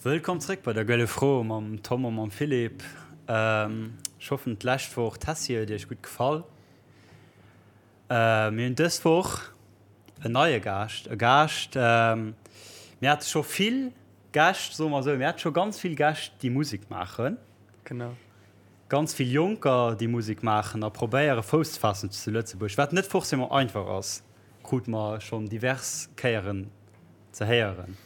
Wëllkomm zréck bei der Gëlle Fro mam Tom a mam Philippe. Ech hoffen d'lescht Woch d'Tessie huet iech gutt gefall. Mir hunn dës Woch en neie Gaascht, e Gaascht, mir hate scho vill Gäscht, soe mer esou, mir hate scho ganz vill Gäscht, déi Musek maachen. Genau. Ganz vill Jonker, déi Musek maachen a probéiere Fouss ze faassen zu Lëtzebuerg, wat net forcément einfach ass, krute mer schonn divers Kéieren ze héieren.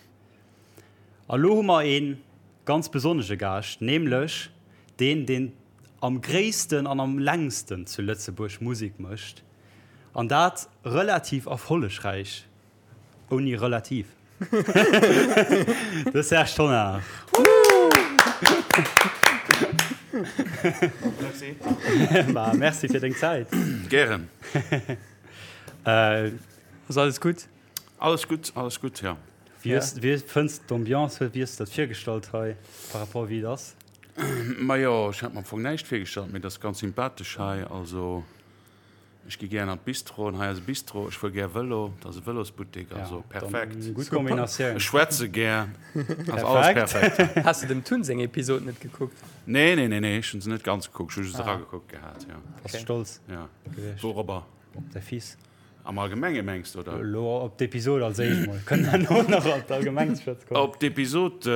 A lo hu mer ee ganz besonnege Gaascht, nämlech deen, deen am gréissten an am längsten zu Lëtzebuerg Musek mécht, an dat relativ erfollegräich, ouni relativ, de Serge Tonnar. Merci. Ma merci fir deng Zäit. Gären. Ass alles gutt? Alles gutt, alles gutt, jo. Wéi hues, wéi fënns de d'Ambiance? Wéi hues de dat virgestallt hei par rapport wéi et ass? Majo, ech hat mer am Fong näischt virgestallt, mee et ass ganz sympathesch hei. Also ech gi gären an d'Bistro an hei ass e Bistro. Ech fuer gär Vëlo, et ass e Vëlosbuttek, also perfekt. Gutt Kombinatioun. Ech schwätze gär, ass alles perfekt. Has de dem Tun seng Episod net gekuckt? Nee, nee, nee, nee, ech hunn se net ganz gekuckt, ech hu just eragekuckt gehat, jo. Bass stolz gewiescht? Wourobber? Op däi Fils. Am Allgemenge mengs de, oder? Elo op d'Episod als éischt mol. Kënnen herno nach op d'Allgemeng ze schwätze kommen. Op d'Episod,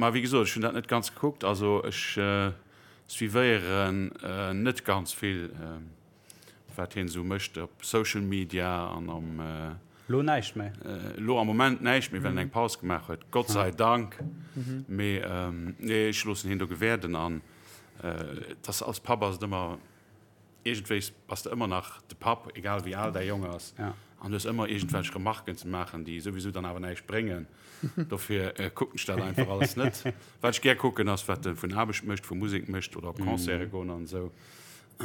ma wéi gesot, ech hunn dat net ganz gekuckt. Also ech suivéieren net ganz vill, wat hien esou mécht op Social Media an am. Elo näischt méi? Elo am Moment näischt méi, well en eng Paus gemaach huet, Gott sei Dank. Mee nee, ech loossen hien do gewäerden an et ass, als Papp ass et ëmmer. Iergendwéis bass de ëmmer nach de Papp, egal wéi al däi Jong ass, an hues ëmmer iergendwelch Remarken ze maachen, déi souwisou dann awer näischt bréngen. Dofir kucken ech dat einfach alles net. Wat ech gär kucken, ass, wat e vun Aarbecht mécht, vu Musek mécht oder op Concerte goen an esou.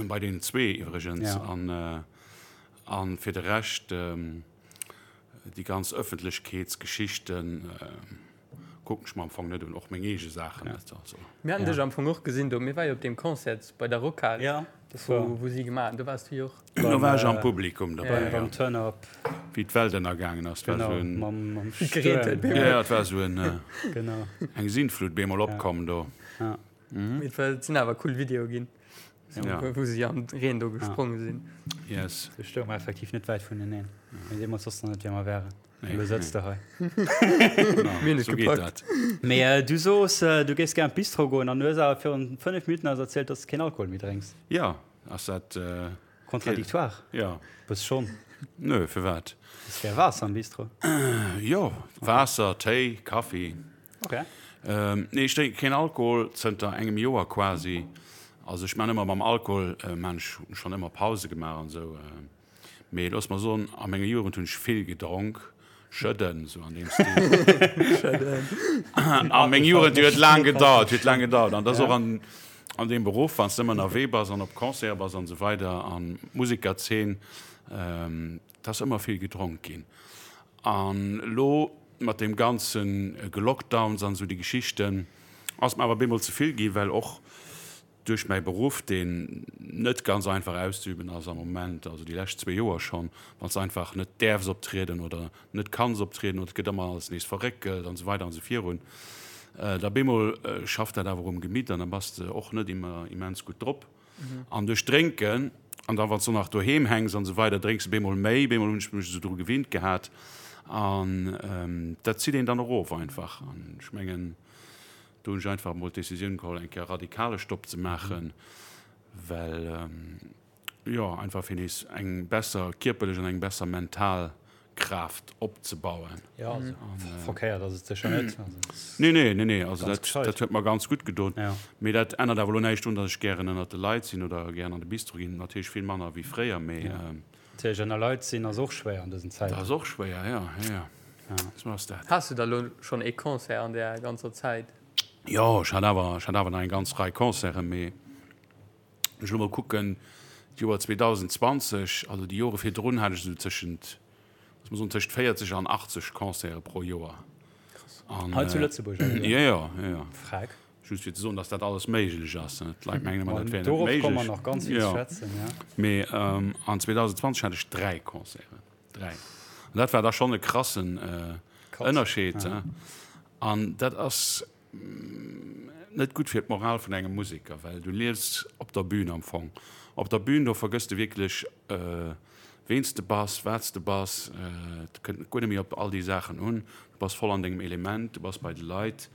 Bei deenen zwee iwwregens. A fir de Rescht, déi ganz Ëffentlechkeetsgeschichten, Kucken ech mer am Fong net un, och meng eege Saachen net. Also. Mir haten dech am Fong och gesinn do. Mir war jo op deem Concert bei der Rockhal, ja, wou, wou si gemaach hunn. Do waars du jo och. Do war ech am Publikum dobäi, ja. Beim Turn-Up. Wéi d'Welt ënnergaangen ass. Genau, war sou en, mam, mam Wéi gereent huet bemol. Ja, ja, et war sou en, genau. eng Sintflut bemol opkomm do. Ja. Mee et war, et sinn awer cool Videoe ginn, Ja. wou si am Reen do gespronge sinn. Yes. Do stounge mer effektiv net wäit vuneneen. Mee deemools wosste mer net, wie mer wären. Elo sëtz de hei. Mir hunn et gepackt. Mee du soos, du géifs gär an d'Bistro goen an du hues awer virun 5 Minutten eis erzielt, dass de keen Alkohol méi drénks. Jo, ass dat. Contradictoire? Jo. Bëss schonn. Nö, firwat? Hues gär Waasser am Bistro? Jo, Waasser, Téi, Kaffi. Ok. Nee, ech drénke keen Alkohol, zënter engem Joer quasi. Also ech man ëmmer mam Alkohol, man ech schonn ëmmer Pause gemaach an esou. Mee looss mer soen, a menger Jugend hunn ech vill gedronk, Schëdden, sou an deem Stil. Schëdden. A meng Jugend, déi huet laang gedauert, huet laang gedauert. An dat ass och an, an deem Beruff, wann s de ëmmer ënnerwee bass an op Concerte bass an esou weider an d'Musekerzeen, et ass ëmmer vill gedronk ginn. An elo mat deem ganze Gelockdowns an esou déi Geschichten, ass mer awer bemol ze vill ginn, well och Duerch mäi Beruff, deen net ganz einfach auszeüben ass am Moment, also déi lescht zwee Joer schonn, wann s de einfach net däerfs optrieden oder net kanns optrieden oder et gëtt ëmmer alles nees verréckelt an esou weider an esou virun, da bemol schafft dat awer um Gemitt an da bass de och net ëmmer immens gutt drop. An duerch Drénken, an da wann s de och nach doheem hänks an esou weider, drénks de bemol méi. Bemol hunn ech mech esou dru gewinnt gehat an dat zitt een dann erof einfach. An ech mengen, Do hunn ech einfach emol d'Decisioun geholl, eng Kéier radikale Stopp ze maachen, well, jo, einfach fir nees eng besser kierperlech an eng besser mental Kraaft opzebauen. Jo, also verkéiert ass et sécher net. Nee, nee, nee, nee, also dat, dat huet mer ganz gutt gedoen. Mee dat ännert awer elo näischt drun, datt ech gären ënnert de Leit sinn oder gären an de Bistro ginn. Natierlech vill manner wéi fréier, mee. Natierlech ënner Leit sinn ass och schwéier an dësen Zäiten. Dat ass och schwéier, jo, jo, jo. Sou ass dat. Has du da lo schonn ee Concert an där ganzer Zäit? Jo, ech hat awer, ech hat awer nach eng ganz Rei Concerten, mee ech elo mol kucken, d'Joer 2020, also déi Jore virdrun hat ech esou tëschent, looss mer soen, tëschent 40 an 80 Concerte pro Joer. Krass. Hei zu Lëtzebuerg awer? Jo, jo, jo, jo. Freck. Just fir ze soen, dass dat alles méiglech ass. D'Leit mengen ëmmer, dat wär net Dorop méiglech. komme mer nach ganz vill ze schwätzen, ja. Mee an 2020 hat ech 3 Concerten. 3. An dat war da schonn e krassen Ënnerscheed. An dat ass. net gutt fir d'Moral vun engem Museker, well du liefs op der Bühn am Fong. Op der Bühn, do vergëss de wierklech, ween s de bass, wat s de bass. Et kënnt guer net méi op all déi Saachen un. Du bass voll an dengem Element, du bass bei de Leit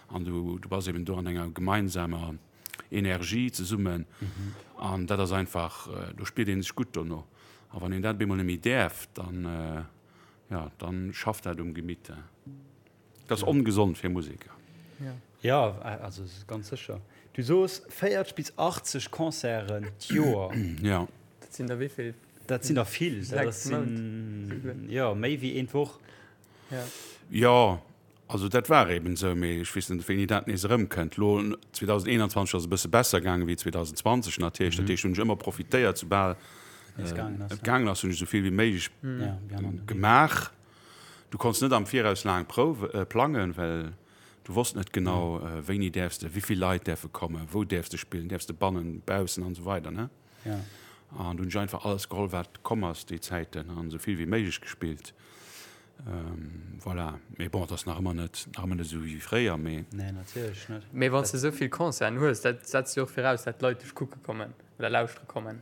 an du, du bass eben do an enger gemeinsamer Energie zesummen. An dat ass einfach, do spiert ee sech gutt dono. A wann een dat op eemol net méi däerf, dann, jo, dann schafft dat um Gemitt. Dat ass ongesond fir Museker. Jo, also ganz sécher. Du soos 40 bis 80 Concerten d'Joer. Jo. Dat sinn der wéi vill? Dat sinn der vill. Dat sinn, jo, méi wéi een d'Woch. Jo, also dat war eben esou, mee ech weess net, wéini dat nees erëmkënnt. Elo 2021 ass e bësse besser gaange wéi 2020 natierlech. Dat heescht, hunn ech ëmmer profitéiert, soubal et gaangen ass, hunn ech esou vill wéi méiglech gemaach. Du konns net am Viraus laang Prouwe plangen, well du wosst net genau, wéini däerfs de, wéi vill Leit däerfe kommen, wou däerfs de spillen, däerfs de bannen, baussen an esou weider ne. An du hunn ech einfach alles geholl, wat komm ass déi Zäiten an esou vill wéi méiglech gespillt. Voilà, mee bon, et ass nach ëmmer net, nach ëmmer net esou wéi fréier, mee. Nee, natierlech net. Mee wann s de esou vill Concerten hues, dat setzt jo och viraus, dat d'Leit dech kucke kommen oder lauschtere kommen.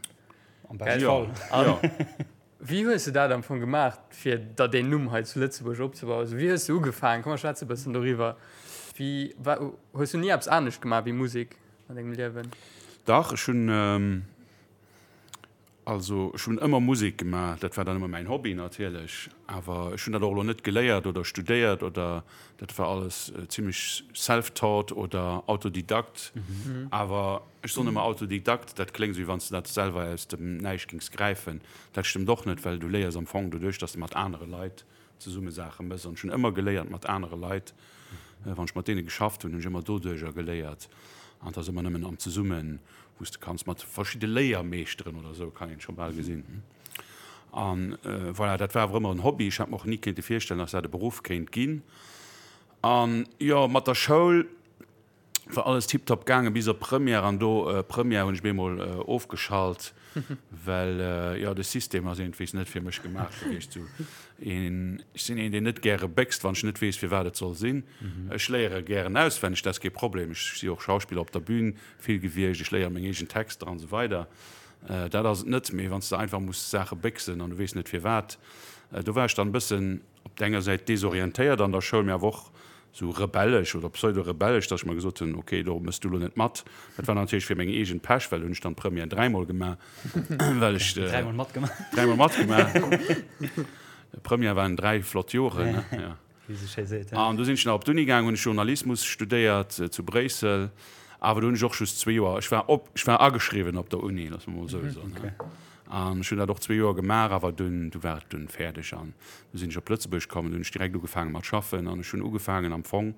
Am beschte Fall. Jo. Wéi hues de dat am Fong gemaach, fir der deen Numm hei zu Lëtzebuerg opzebauen? Also wéi hues de ugefaangen? Komm mer schwätze e bëssen doriwwer. Wéi war, hues du ni eppes anescht gemaach wéi Musek an dengem Liewen? Dach, ech hunn, also ech hunn ëmmer Musek gemaach. Dat war dann ëmmer mäin Hobby natierlech. Awer ech hunn dat och elo net geléiert oder studéiert oder dat war alles zimmlech self-taught oder Autodidakt. Awer Ech soen ëmmer Autodidakt, dat kléngt esou wéi wann s de dat selwer aus dem Näischt géings gräifen. Dat stëmmt och net, well du léiers am Fong doduerch, dass de mat anere Leit zesumme Saache méchs. An ech hunn ëmmer geléiert mat anere Leit. Wann ech mat deene geschafft hunn, hunn ech ëmmer doduercher geléiert. An et ass ëmmer nëmmen am Zesummen, wou s de kanns mat verschidde Léiermeeschteren oder esou, kann een scho bal gesinn. An voilà, dat war awer ëmmer en Hobby. Ech hat mer och ni kéinte virstellen, dass dat e Beruff kéint ginn. An jo, mat der Schoul, War alles tiptop gaangen bis op Première an do Première hunn ech bemol ofgeschalt well jo de System ass iergendwéis net fir mech gemaach gewiescht. Sou een, ech sinn een deen net gäre béchst wann ech net weess firwat et soll sinn. Ech léiere gären auswenneg, dat ass kee Problem. Ech si och Schauspiller op der Bühn vill gewiescht, ech léiere meng eegen Texter an esou weider. Dat ass et net, mee wann s de einfach muss Saache béchsen an du weess net firwat, do war ech dann e bëssen op der enger Säit desorientéiert an der Schoul, mee awer och sou rebellesch oder pseudo-rebellesch, dass ech mer gesot hunn, ok, do mëss du lo net mat. Dat war natierlech fir meng eegen Pech, well hunn ech dann d'Première dräimol gemaach, well ech. Dräimol matgemaach. Dräimol matgemaach. Première waren dräi flott Joren, ne? Ja. Wéi se schéi seet, ja. An du sinn ech nach op d'Uni gaang, hunn ech Journalismus studéiert zu Bréissel, awer do hunn ech och just zwee Joer, ech war op, ech war ageschriwwen op der Uni, loosse mer mol esou soen, ne? An ech hunn dat och zwee Joer gemaach, awer dunn, du war et dunn fäerdeg an du sinn ech op Lëtzebuerg komm an du hunn ech direkt ugefaange mat schaffen an ech hunn ugefaangen am Fong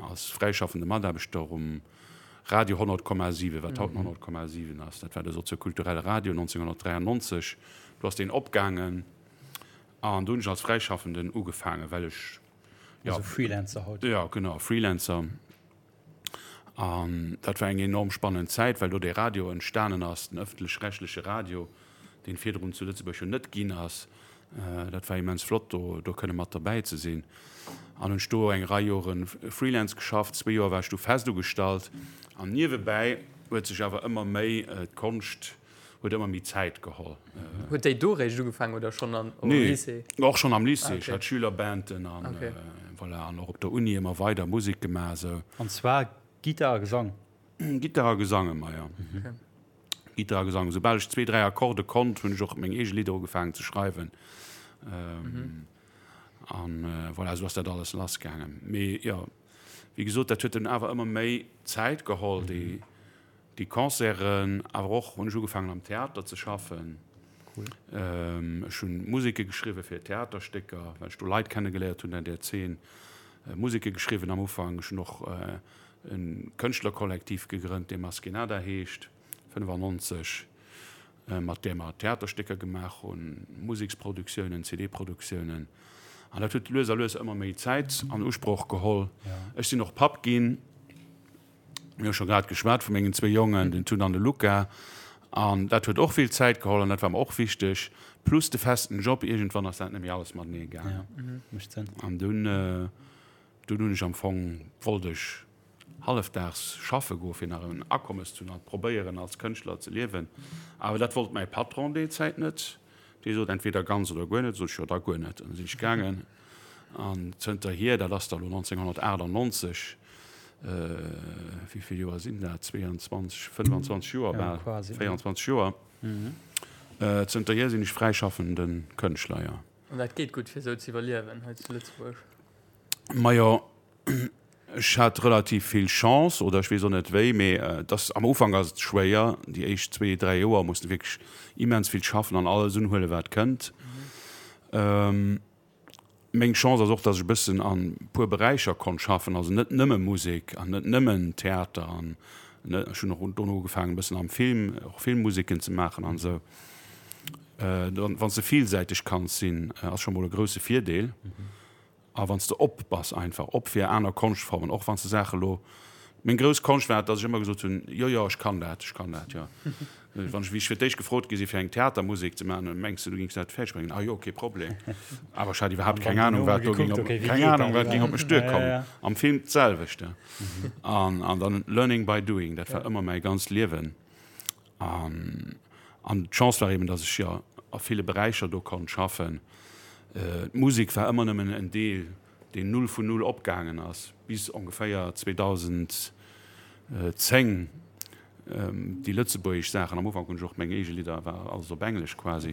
als fräischaffende Mataarbechter um Radio 100,7, wat haut 100,7 ass. Dat war de soziokulturelle Radio 1993, do ass deen opgaangen an do hunn ech als Fräischaffenden ugefaangen, well ech, jo. Also Freelancer haut. Jo, genau, Freelancer. An dat war eng enorm spannend Zäit, well do dee Radio entstanen ass, den ëffentlech-rechtleche Radio, deen virdrun zu Lëtzebuerg jo net ginn ass. Dat war immens flott, do do kënne mat derbäi ze sinn. An hunn ech do eng Rei Jore Freelance geschafft. Zwee Joer war ech du fest ugestallt. An niewebäi huet sech awer ëmmer méi d'Konscht huet ëmmer méi Zäit geholl. Huet déi do réischt ugefaangen oder schonn am Lycée? Nee, och schonn am Lycée. Ech hat Schülerbanden an voilà, an och op der Uni ëmmer weider Musek gemaach esou. An zwar Gittar a Gesang? Gittar a Gesang ëmmer, jo. Gittar a Gesang. Soubal ech zwee, dräi Akkorde konnt, hunn ech och meng eege Lidder ugefaangen ze schreiwen. An voilà, esou ass dat alles lassgaangen. Mee jo, wéi gesot, dat huet dunn awer ëmmer méi Zäit geholl, déi Déi Concerten, awer och hunn ech ugefaangen am Theater ze schaffen. Cool. Ech hunn Museke geschriwwe fir Theaterstécker, well ech do Leit kennegeléiert hunn an där Zeen. Museke geschriwwen am Ufank. Ech hunn och e Kënschtlerkollektiv gegrënnt, dee Maskenada heescht, 95, mat där mer Theaterstécker gemaach hunn, Museksproduktiounen, CD-Produktiounen. An dat huet lues a lues ëmmer méi Zäit an Usproch geholl. Ech sinn och Papp ginn. Mir hu scho grad geschwat vu mengen zwee Jongen, den Tun an de Luca. An dat huet och vill Zäit geholl an dat war mer och wichteg. Plus de festen Job, iergendwann ass dat net méi alles matenee gaangen. Ja, mécht Sënn. An dunn, Dunn hunn ech am Fong, wollt ech hallefdaags schaffe goen, fir nach en Akommes ze hunn an probéieren als Kënschtler ze liewen. Awer dat wollt mäi Patron déi Zäit net. Dee sot, entweder ganz oder guer net. Sot ech, jo da guer net. An da sinn ech gaangen. An zënterhier, dat ass da lo 1998, wéi vill Joer sinn dat, 22, 25 Joer bal, 24 Joer, zënterhier sinn ech fräischaffende Kënschtler, jo. An dat geet gutt, fir esou ze iwwerliewen hei zu Lëtzebuerg? Majo, ech hat relativ vill Chance, oder ech weess och net wéi, mee et ass, am Ufank ass et schwéier, déi éischt zwee, dräi Joer muss de wierklech immens vill schaffen an alles unhuelen, wat kënnt. Meng Chance ass och, dass ech e bëssen an e puer Beräicher konnt schaffen, also net nëmme Musek an net nëmmen Theater an ech hunn och dono ugefaangen e bëssen am Film, och Filmmuseken ze maachen an esou. Wann s de villsäiteg kanns sinn, ass scho mol e grousse Virdeel. A wann s de op bass einfach, op fir aner Konschtformen, och wann s de Saache lo, meng grouss Konscht war et, datt ech ëmmer gesot hunn, jo, jo, ech kann dat, ech kann dat, jo. Wann ech, wéi ech fir d'éischt gefrot gi si fir eng Theatermusek ze maachen, mengs de du géings dat fäerdeg bréngen? Ah jo, kee Problem. Awer ech hat iwwerhaapt keng Anung, wat do géing op, keng Anung, wat géing op mech duerkommen. Am Film d'selwecht. An, an dann learning by doing, dat war ëmmer mäi ganzt Liewen. An d'Chance war eben, datt ech jo a ville Beräicher do konnt schaffen. D'Musek war ëmmer nëmmen en Deel, deen null vun null opgaangen ass, bis ongeféier 2010 déi lëtzebuergesch Saachen. Am Ufank hunn ech och meng eege Lidder, war alles op Englesch quasi.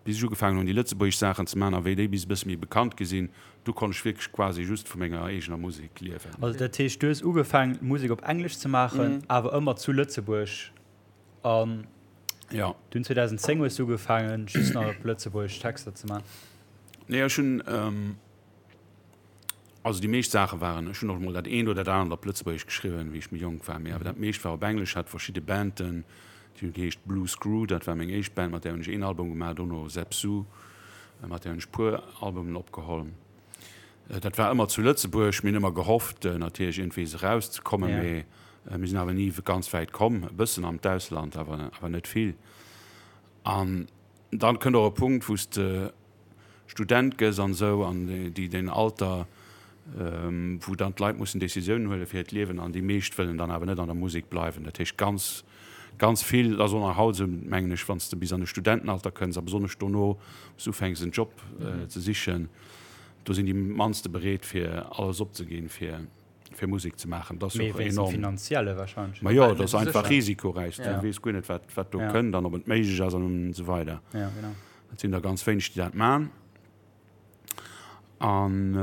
Bis ech ugefaangen hunn, déi lëtzebuergesch Saachen ze maachen a wéi déi bis e bësse méi bekannt gi sinn, du konnt ech wierklech quasi just vu menger eegener Musek liewen. Also dat heescht, du hues ugefaangen, Musek op Englesch ze maachen, awer ëmmer zu Lëtzebuerg an dunn 2010 hues du ugefaangen, just nach op Lëtzebuergesch Texter ze maachen? Nee, ech hunn. Also déi meescht Saache waren, ech hunn och emol dat eent oder dat anert op Lëtzebuergesch geschriwwen, wéi ech méi jonk war, mee awer dat meescht war op Englesch. Hat verschidde Banden, déi hunn geheescht Blue Screw, dat war meng éischt Band, mat där hunn ech een Album gemaach, dono Zep Su, mat där hunn ech puer Albumen opgeholl. Dat war ëmmer zu Lëtzebuerg. Mir hunn ëmmer gehofft natierlech iergendwees erauszekommen, mee mir sinn awer ni ganz wäit komm, e bëssen an d'Ausland, awer awer net vill. An dann kënnt och e Punkt, wou s de Student gëss an esou an déi deen Alter wou dann d'Leit mussen Decisiounen huele fir hiert Liewen an déi meescht wëllen dann awer net an der Musek bleiwen. Dat heescht ganz ganz vill, dat ass och nach haut esou mengen ech, wann s de bis an de Studentenalter kënns a besonnesch dono wou s ufänks en Job ze sichen, do sinn déi mannste bereet fir alles opzeginn fir fir Musek ze maachen. Dat ass och enorm. Finanzielle wahrscheinlech. Ma jo, dat ass einfach risikoräich. Du weess guer net wat wat do kënnt an ob et méiglech ass an esou weider. Et sinn der ganz wéineg, déi dat man. An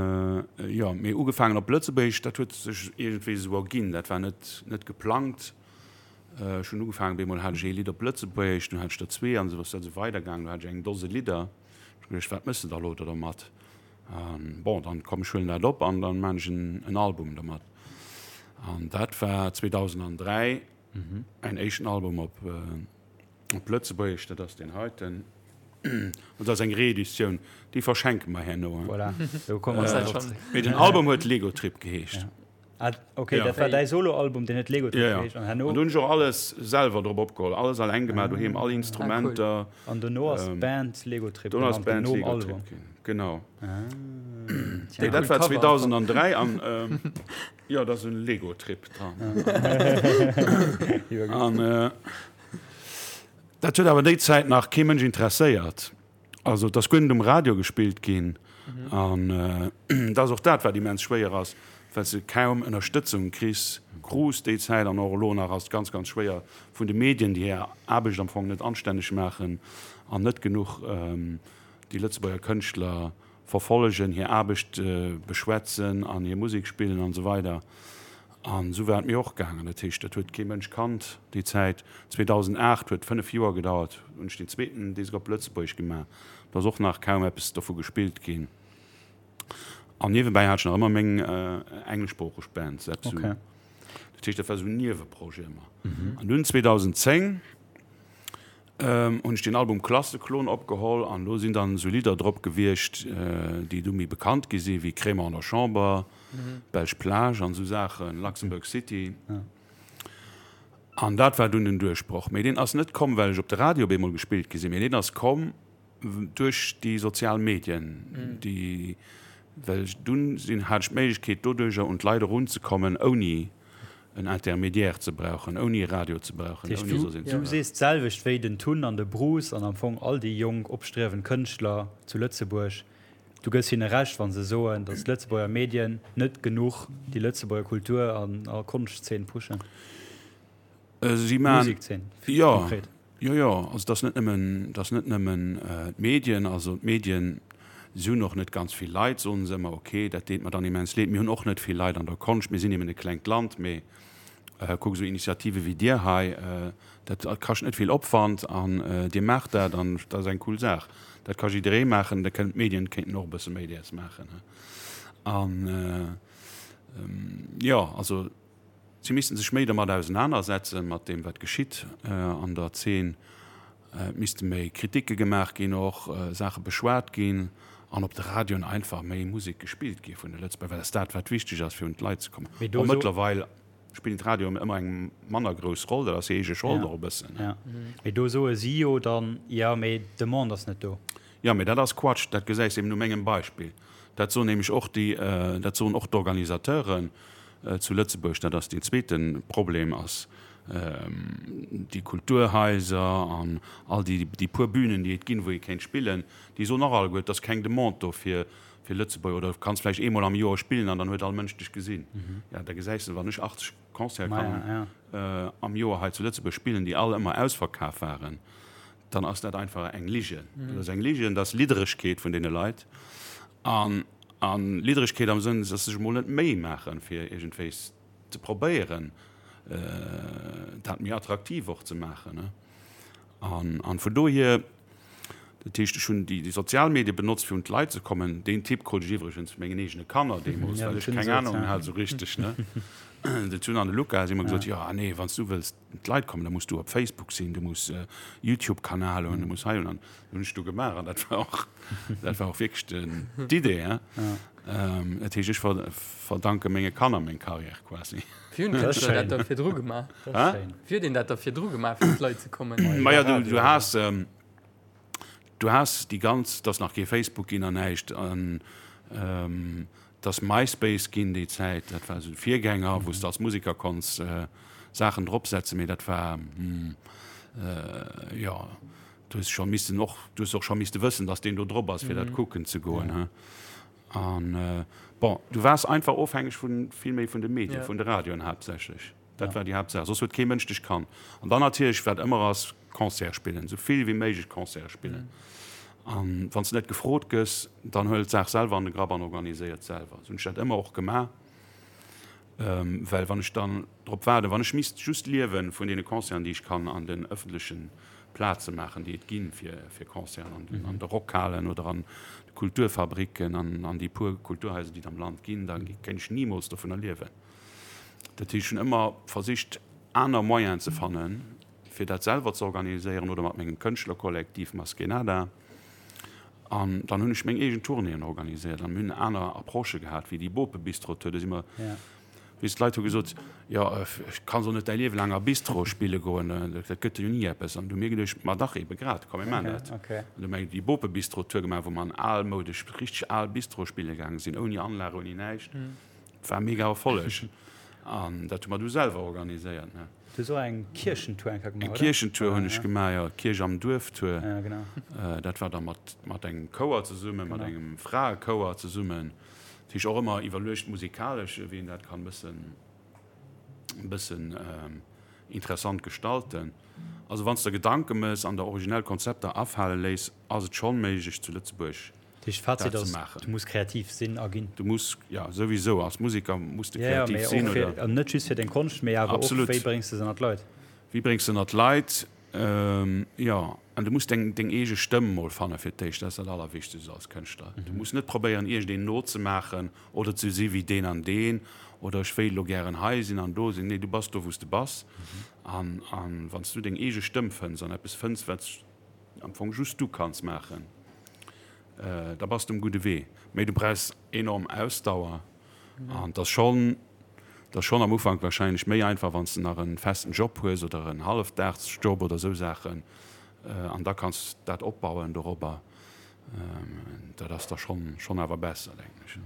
jo, mee ugefaangen op Lëtzebuergesch, dat huet sech iergendwéi esou erginn. Dat war net, net geplangt. Ech hunn ugefaangen, bemol hat ech ee Lidd op Lëtzebuergesch, dunn hat ech der zwee an esou ass dat esou weidergaangen. Du hat ech eng Dose Lidder. Ech hu geduecht, wat méchs de da elo do dermat? An bon, dann komm ech huelen dat op an dann man ech en, en Album dermat. An dat war 2003 mäin éischten Album op. Op Lëtzebuergesch, dat ass deen heiten. Dat ass eng Reeditioun, déi verschenke mer herno. Voilà, do komme mer nach drop zréck. Mee den Album huet Lego Trip geheescht. Ah, okay, dat war däi Solo-Album, deen huet Lego Trip geheescht. An herno. An do hunn ech och alles selwer drop opgeholl, alles alleng gemaach doheem, all Instrumenter. An dono ass d'Band Lego Trip genannt ginn, nom Album. Genau. Ah, dat war 2003 an jo, dat ass en Lego Trip dran. An. Dat huet awer déi Zäit nach kee Mënsch interesséiert. Also et ass guer net um Radio gespillt ginn. An dat ass och dat, wat immens schwéier ass, well s de kaum Ënnerstëtzung kriss, krus déi Zäit an och elo nach ass et ganz, ganz schwéier vun de Medien, déi hir Aarbecht am Fong net anstänneg maachen an net genuch déi Lëtzebuerger Kënschtler verfollegen, hir Aarbecht beschwätzen an hir Musek spillen an esou weider. An esou war et mir och gaangen. Dat heescht, dat huet kee Mënsch kannt déi Zäit. 2008 huet 5 Joer gedauert, hunn ech deen zweeten Disk op Lëtzebuergesch gemaach. Do ass och nach kaum eppes dovu gespillt ginn. An niewebäi hat ech nach ëmmer meng engleschsproocheg Band, Sepsu. Dat heescht, dat war esou en Nieweprojet ëmmer. An dunn 2010 hunn ech den Album Klasseklon opgeholl an do sinn dann esou Lidder drop gewiescht, déi du méi bekannt gi sinn, wéi Crémant an der Chamber, Belsch Plage an esou Saachen, Luxembourg City. An dat war dunn den Duerchbroch. Mee deen ass net komm, well ech op de Radio op eemol gespillt gi sinn, mee deen ass komm duerch déi sozial Medien, déi. Well dunn sinn, hat ech d'Méiglechkeet doduercher un d'Leit erunzekommen, ouni en Intermédiaire ze brauchen, ouni e Radio ze brauchen, Dat heescht, ouni soss een ze du brauchen. sees d'selwecht wéi den Tun an de Bruce an am Fong all déi jonk opstriewend Kënschtler zu Lëtzebuerg. Du gëss hinne Recht, wa se soen, datt d'Lëtzebuerger Medien net genuch déi Lëtzebuerger Kultur an a Konschtzeen pushen. Si maan, Musikzeen, jo, konkret. jo, jo, also et ass net nëmmen, et ass net nëmmen d'Medien, also d'Medien, si hunn och net ganz vill Leit, soen se ëmmer, ok, dat deet mer dann immens leed, mir hunn och net vill Leit an der Konscht, mir sinn eben e klengt Land, mee kuck, esou Initiative wéi dir hei, dat kascht net vill Opwand an dir maacht dat an dat ass eng cool Saach, dat ka jidderee maachen, da kënnen d'Medien kéinten och e bësse méi däers maachen an jo, also. Si missten sech méi dermat ausenanersetzen, mat deem wat geschitt an der Zeen. Et misste méi Kritike gemaach ginn, och Saache beschwat ginn an op de Radioen einfach méi Musek gespillt gi vun de Lëtzebuerger, well dat ass dat wat wichteg ass fir un d'Leit ze kommen. Mee do Bon, so. mëttlerweil spillen d'Radioen ëmmer eng manner grouss Roll, dat ass hir eege Schold och e bëssen. Ja, mee do soe si jo dann, jo mee d'Demande ass net do. Jo, mee dat ass Quatsch, dat gesäis de eben u mengem Beispill. Dat soen nämlech och déi, dat soen och d'Organisateuren zu Lëtzebuerg. Dat ass deen zweete Problem, ass déi Kulturhaiser an all déi, déi puer Bünen, déi et ginn, wou ee kéint spillen, déi soen och alleguer, et ass keng Demande do fir, fir Lëtzebuerg. Oder du kanns vläicht eemol am Joer spillen an dann huet all Mënsch dech gesinn. Jo, da gesäis de, wann ech 80 Concerte kann am Joer hei zu Lëtzebuerg spillen, déi all ëmmer ausverkaf waren, dann ass dat einfach eng Ligen. Dat ass eng Ligen, dat ass Lidderegkeet vun deene Leit. An, an Lidderegkeet am Sënn, dass se sech emol net d'Méi maachen, fir iergendwéis ze probéieren, dat méi attraktiv och ze maachen. An, an vun dohier, dat heescht, ech hunn déi, déi sozial Medie benotzt, fir un d'Leit ze kommen. Deen Tipp krut ech iwwregens vu mengen eegene Kanner deemools, well ech keng Anung hat esou richteg, ne. Den Tun an de Luca si ëmmer gesot, jo, nee, wann s du wëlls d'Leit kommen, da muss du op Facebook sinn, du muss e Youtube-Kanal hunn, du muss hei hunn an dat hunn ech du gemaach an dat war och, dat war och wierklech den, d'Idee, hein. Dat heescht, ech ver, verdanke menge Kanner meng Carrière quasi. Wéi hunn d'Kënschtler dat da virdru gemaach? Wéi huet een dat da virdru gemaach, fir un d'Leit ze kommen? Maja, du, du has, du has déi ganz, et ass nach kee Facebook ginn an näischt an, Et ass MySpace ginn déi Zäit, dat war esou de Virgänger, wou s de als Museker konns Saachen dropsetzen, mee dat war, jo, du hues scho missen och, du hues och scho misste wëssen, datt deen do drop ass, fir dat kucken ze goen, he. An bon, du waars einfach ofhängeg vun, vill méi vun de Medien, vun de Radioen haaptsächlech. Dat war déi Haaptsaach, soss huet kee Mënsch dech kannt. An dann natierlech, wat ëmmer ass, Concerte spillen, esou vill wéi méiglech Concerte spillen. An wann s de net gefrot gëss, dann huel d'Saach selwer an de Grapp an organiséier et selwer. Esou hunn ech dat ëmmer och gemaach, well wann ech dann drop waarden, wann ech misst just liewe vun deene Concerten, déi ech kann an den ëffentleche Plaze maachen, déi et ginn fir fir Concerten, an den an de Rockhalen oder an de Kulturfabricken an an déi puer Kulturhaiser, déi et am Land ginn, da kéint ech nimools dovunner liewen. Dat heescht, ech hunn ëmmer versicht, aner Moyenen ze fannen, fir dat selwer ze organiséieren oder mat mengem Kënschtlerkollektiv Maskenada. An dann hunn ech meng eegen Tournéeën organiséiert an mir hunn aner Approchë gehat wéi déi Bope-Bistro-Tour. Do si mer, weess, d'Leit hu gesot, jo, ech kann soll net däi Liewe laang a Bistro spille goen, dat gëtt jo ni eppes. An du hu mir geduecht, ma dach, ebe grad, komm mir maachen dat. An du hu mer déi Bope-Bistro-Tour gemaach, wou mer an almoudesch, richteg al Bistroe spille gaange sinn, ouni Anlag, ouni näischt. War mega Erfolleg an dat hu mer du selwer organiséiert ne. Du hues och eng Kierchentour eng Kéier gemaach, oder? Eng Kierchentour hunn ech gemaach, jo, Kierch am Duerf Tour. Ja, genau. Dat war da mat mat engem Chouer zesummen, mat engem Fraechouer zesummen. Dat heescht och ëmmer iwwerluecht musikalesch, wéi een dat kann bëssen bëssen interessant gestalten. Also wann s de der Gedanke mëss an der originell Konzepter afale léiss, ass et schonn méiglech zu Lëtzebuerg Dat heescht, Fazit ass, du muss kreativ sinn a ginn. Du muss, jo, souwisou, als Museker muss de kreativ sinn, oder? An net just fir deng Konscht, mee awer och, wéi bréngs de se ënner d'Leit? Wéi bréngs de ënner d'Leit, jo. An du muss deng, deng eege Stëmm mol fanne fir d'éischt, dat ass dat Allerwichtegst als Kënschtler. Du muss net probéieren, iergendeen nozemaachen oder ze si wéi deen an deen oder ech wéilt elo gären hei sinn an do sinn. Nee, du bass do, wou s de bass. An, an wann s du deng eege Stëmm fënns an eppes fënns, wat am Fong just du kanns maachen, da bass de um gudde Wee. Mee du brauchs enorm Ausdauer an et ass schonn, et ass schonn am Ufank warscheinlech méi einfach, wann s de nach e festen Job hues oder en Hallefdagsjob oder esou Saachen an da kanns dat opbauen dorobber. Dat ass da schonn, schonn awer besser, denken ech.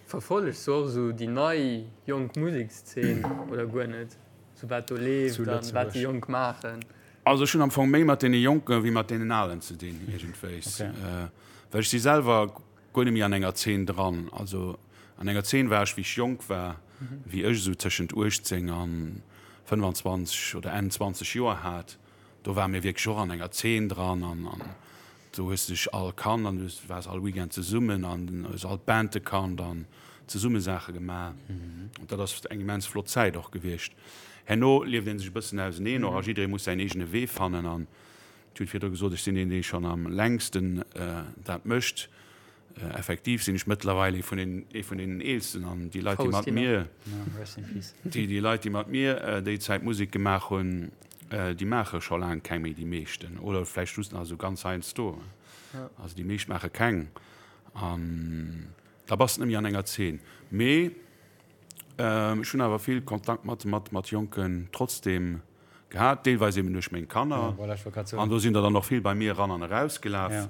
Verfollegs du och esou déi nei jonk Musekszeen oder guer net? Sou wat do leeft an wat déi Jonk maachen? Also ech hunn am Fong méi mat deene Jonke wéi mat deenen Alen ze dinn iergendwéis. Well ech si selwer guer net méi an enger Zeen dran. Also an enger Zeen war ech wéi ech jonk war, wéi ech esou tëschent 18 an 25 oder Enn 20 Joer hat. Do ware mir wierklech och an enger Zeen dran an do hues de dech all kannt an du waars all Weekend zesummen an hues all d'Bande kannt an zesumme Saache gemaach. An dat ass eng immens flott Zäit och gewiescht. Herno lieft ee sech e bëssen auseneen och a jidderee muss säin eegene Wee fannen an ech hunn virdru gesot, ech sinn deen, dee schonn am längsten dat mécht. Effektiv sinn ech mëttlerweil ee vun den, ee vun deenen Eelsten an déi Leit, déi mat mir, déi, déi Leit, déi mat mir déi Zäit Musek gemaach hunn, déi maache scho laang keng méi, déi meeschten. Oder vläicht just nach esou ganz heiansdo. Also déi meescht maache keng. An da bass de net méi an enger Zeen. Mee ech hunn awer vill Kontakt mat, mat, mat Jonken trotzdeem. Gehat, deelweis eben duerch meng Kanner. An do sinn der dann och vill bei mir eran an erausgelaf,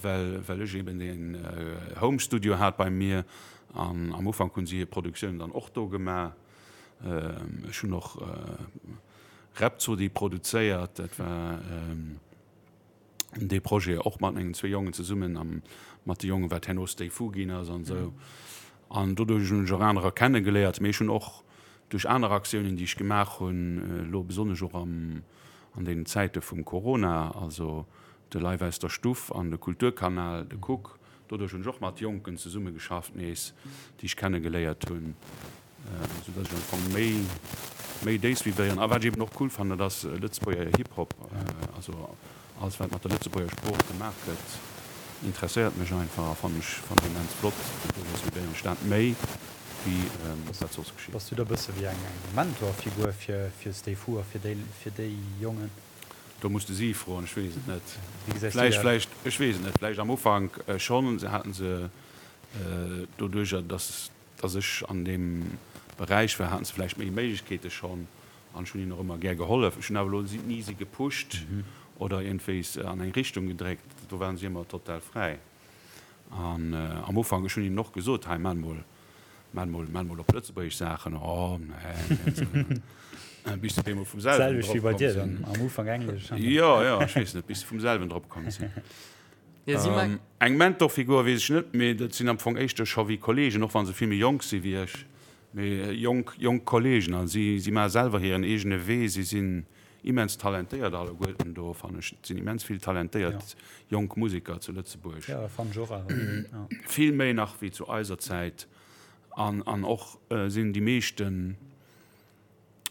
well well ech eben deen Home Studio hat bei mir. An am Ufank hunn si hir Produktiounen dann och do gemaach. Ech hunn och Rhapsody produzéiert, dat war dee Projet och mat mengen zwee Jongen zesummen a mat de Jongen, wat herno Stay Fu ginn ass an esou. An doduerch hunn ech och anerer kennegeléiert. Mee ech hunn och duerch aner Aktiounen, déi ech gemaach hunn, elo besonnesch och am, an deenen Zäite vum Corona, also de Live aus der Stuff an de Kulturkanal, de Kuck, doduerch hunn ech och mat Jonken zesummegeschafft nees, déi ech kennegeléiert hunn. Sou dass ech am Fong méi méi déi suivéieren. A wat ech eben och cool fannen, dat ass Lëtzebuerger Hip-Hop. Also alles wat mat der Lëtzebuerger Sprooch gemaach gëtt, interesséiert mech einfach a fannen ech fannen ech immens flott. An doduerch suivéieren ech dat méi wéi wat soss geschitt. Bass du da bësse wéi eng Mentorfigur fir fir Stay Fu a fir déi fir déi Jongen? Do muss de si froen, ech weess et net. Wéi gesäis du dat? Vläicht, ech weess et net, vläicht am Ufank schonn, se haten se doduercher dass Dass ech an deem Beräich war, haten se vläicht méi Méiglechkeete schonn an ech hunn hinnen och ëmmer gär gehollef. Ech hunn awer elo ni si gepusht oder iergendwéis an eng Richtung gedréckt, do waren si ëmmer total fräi. An am Ufank, ech hunn hinnen och gesot, hei maach mol, maach mol, maach mol op Lëtzebuergesch Saachen, oh nee, bis se deemol vum selwen drop komm sinn. Am Ufank Englesch. Jo, jo, ech weess net, bis se vum selwen drop komm sinn. Eng Mentorfigur weess ech net, mee dat sinn am Fong éischter scho wéi Kollegen, och wa se vill méi jonk si wéi ech, mee jonk, jonk Kollegen. A si, si maache selwer hiren eegene Wee. Si sinn immens talentéiert alleguerten do, fannen ech. Et sinn immens vill talentéiert jonk Museker zu Lëtzebuerg. Vill méi nach wéi zu eiser Zäit. An, an och sinn déi meeschten,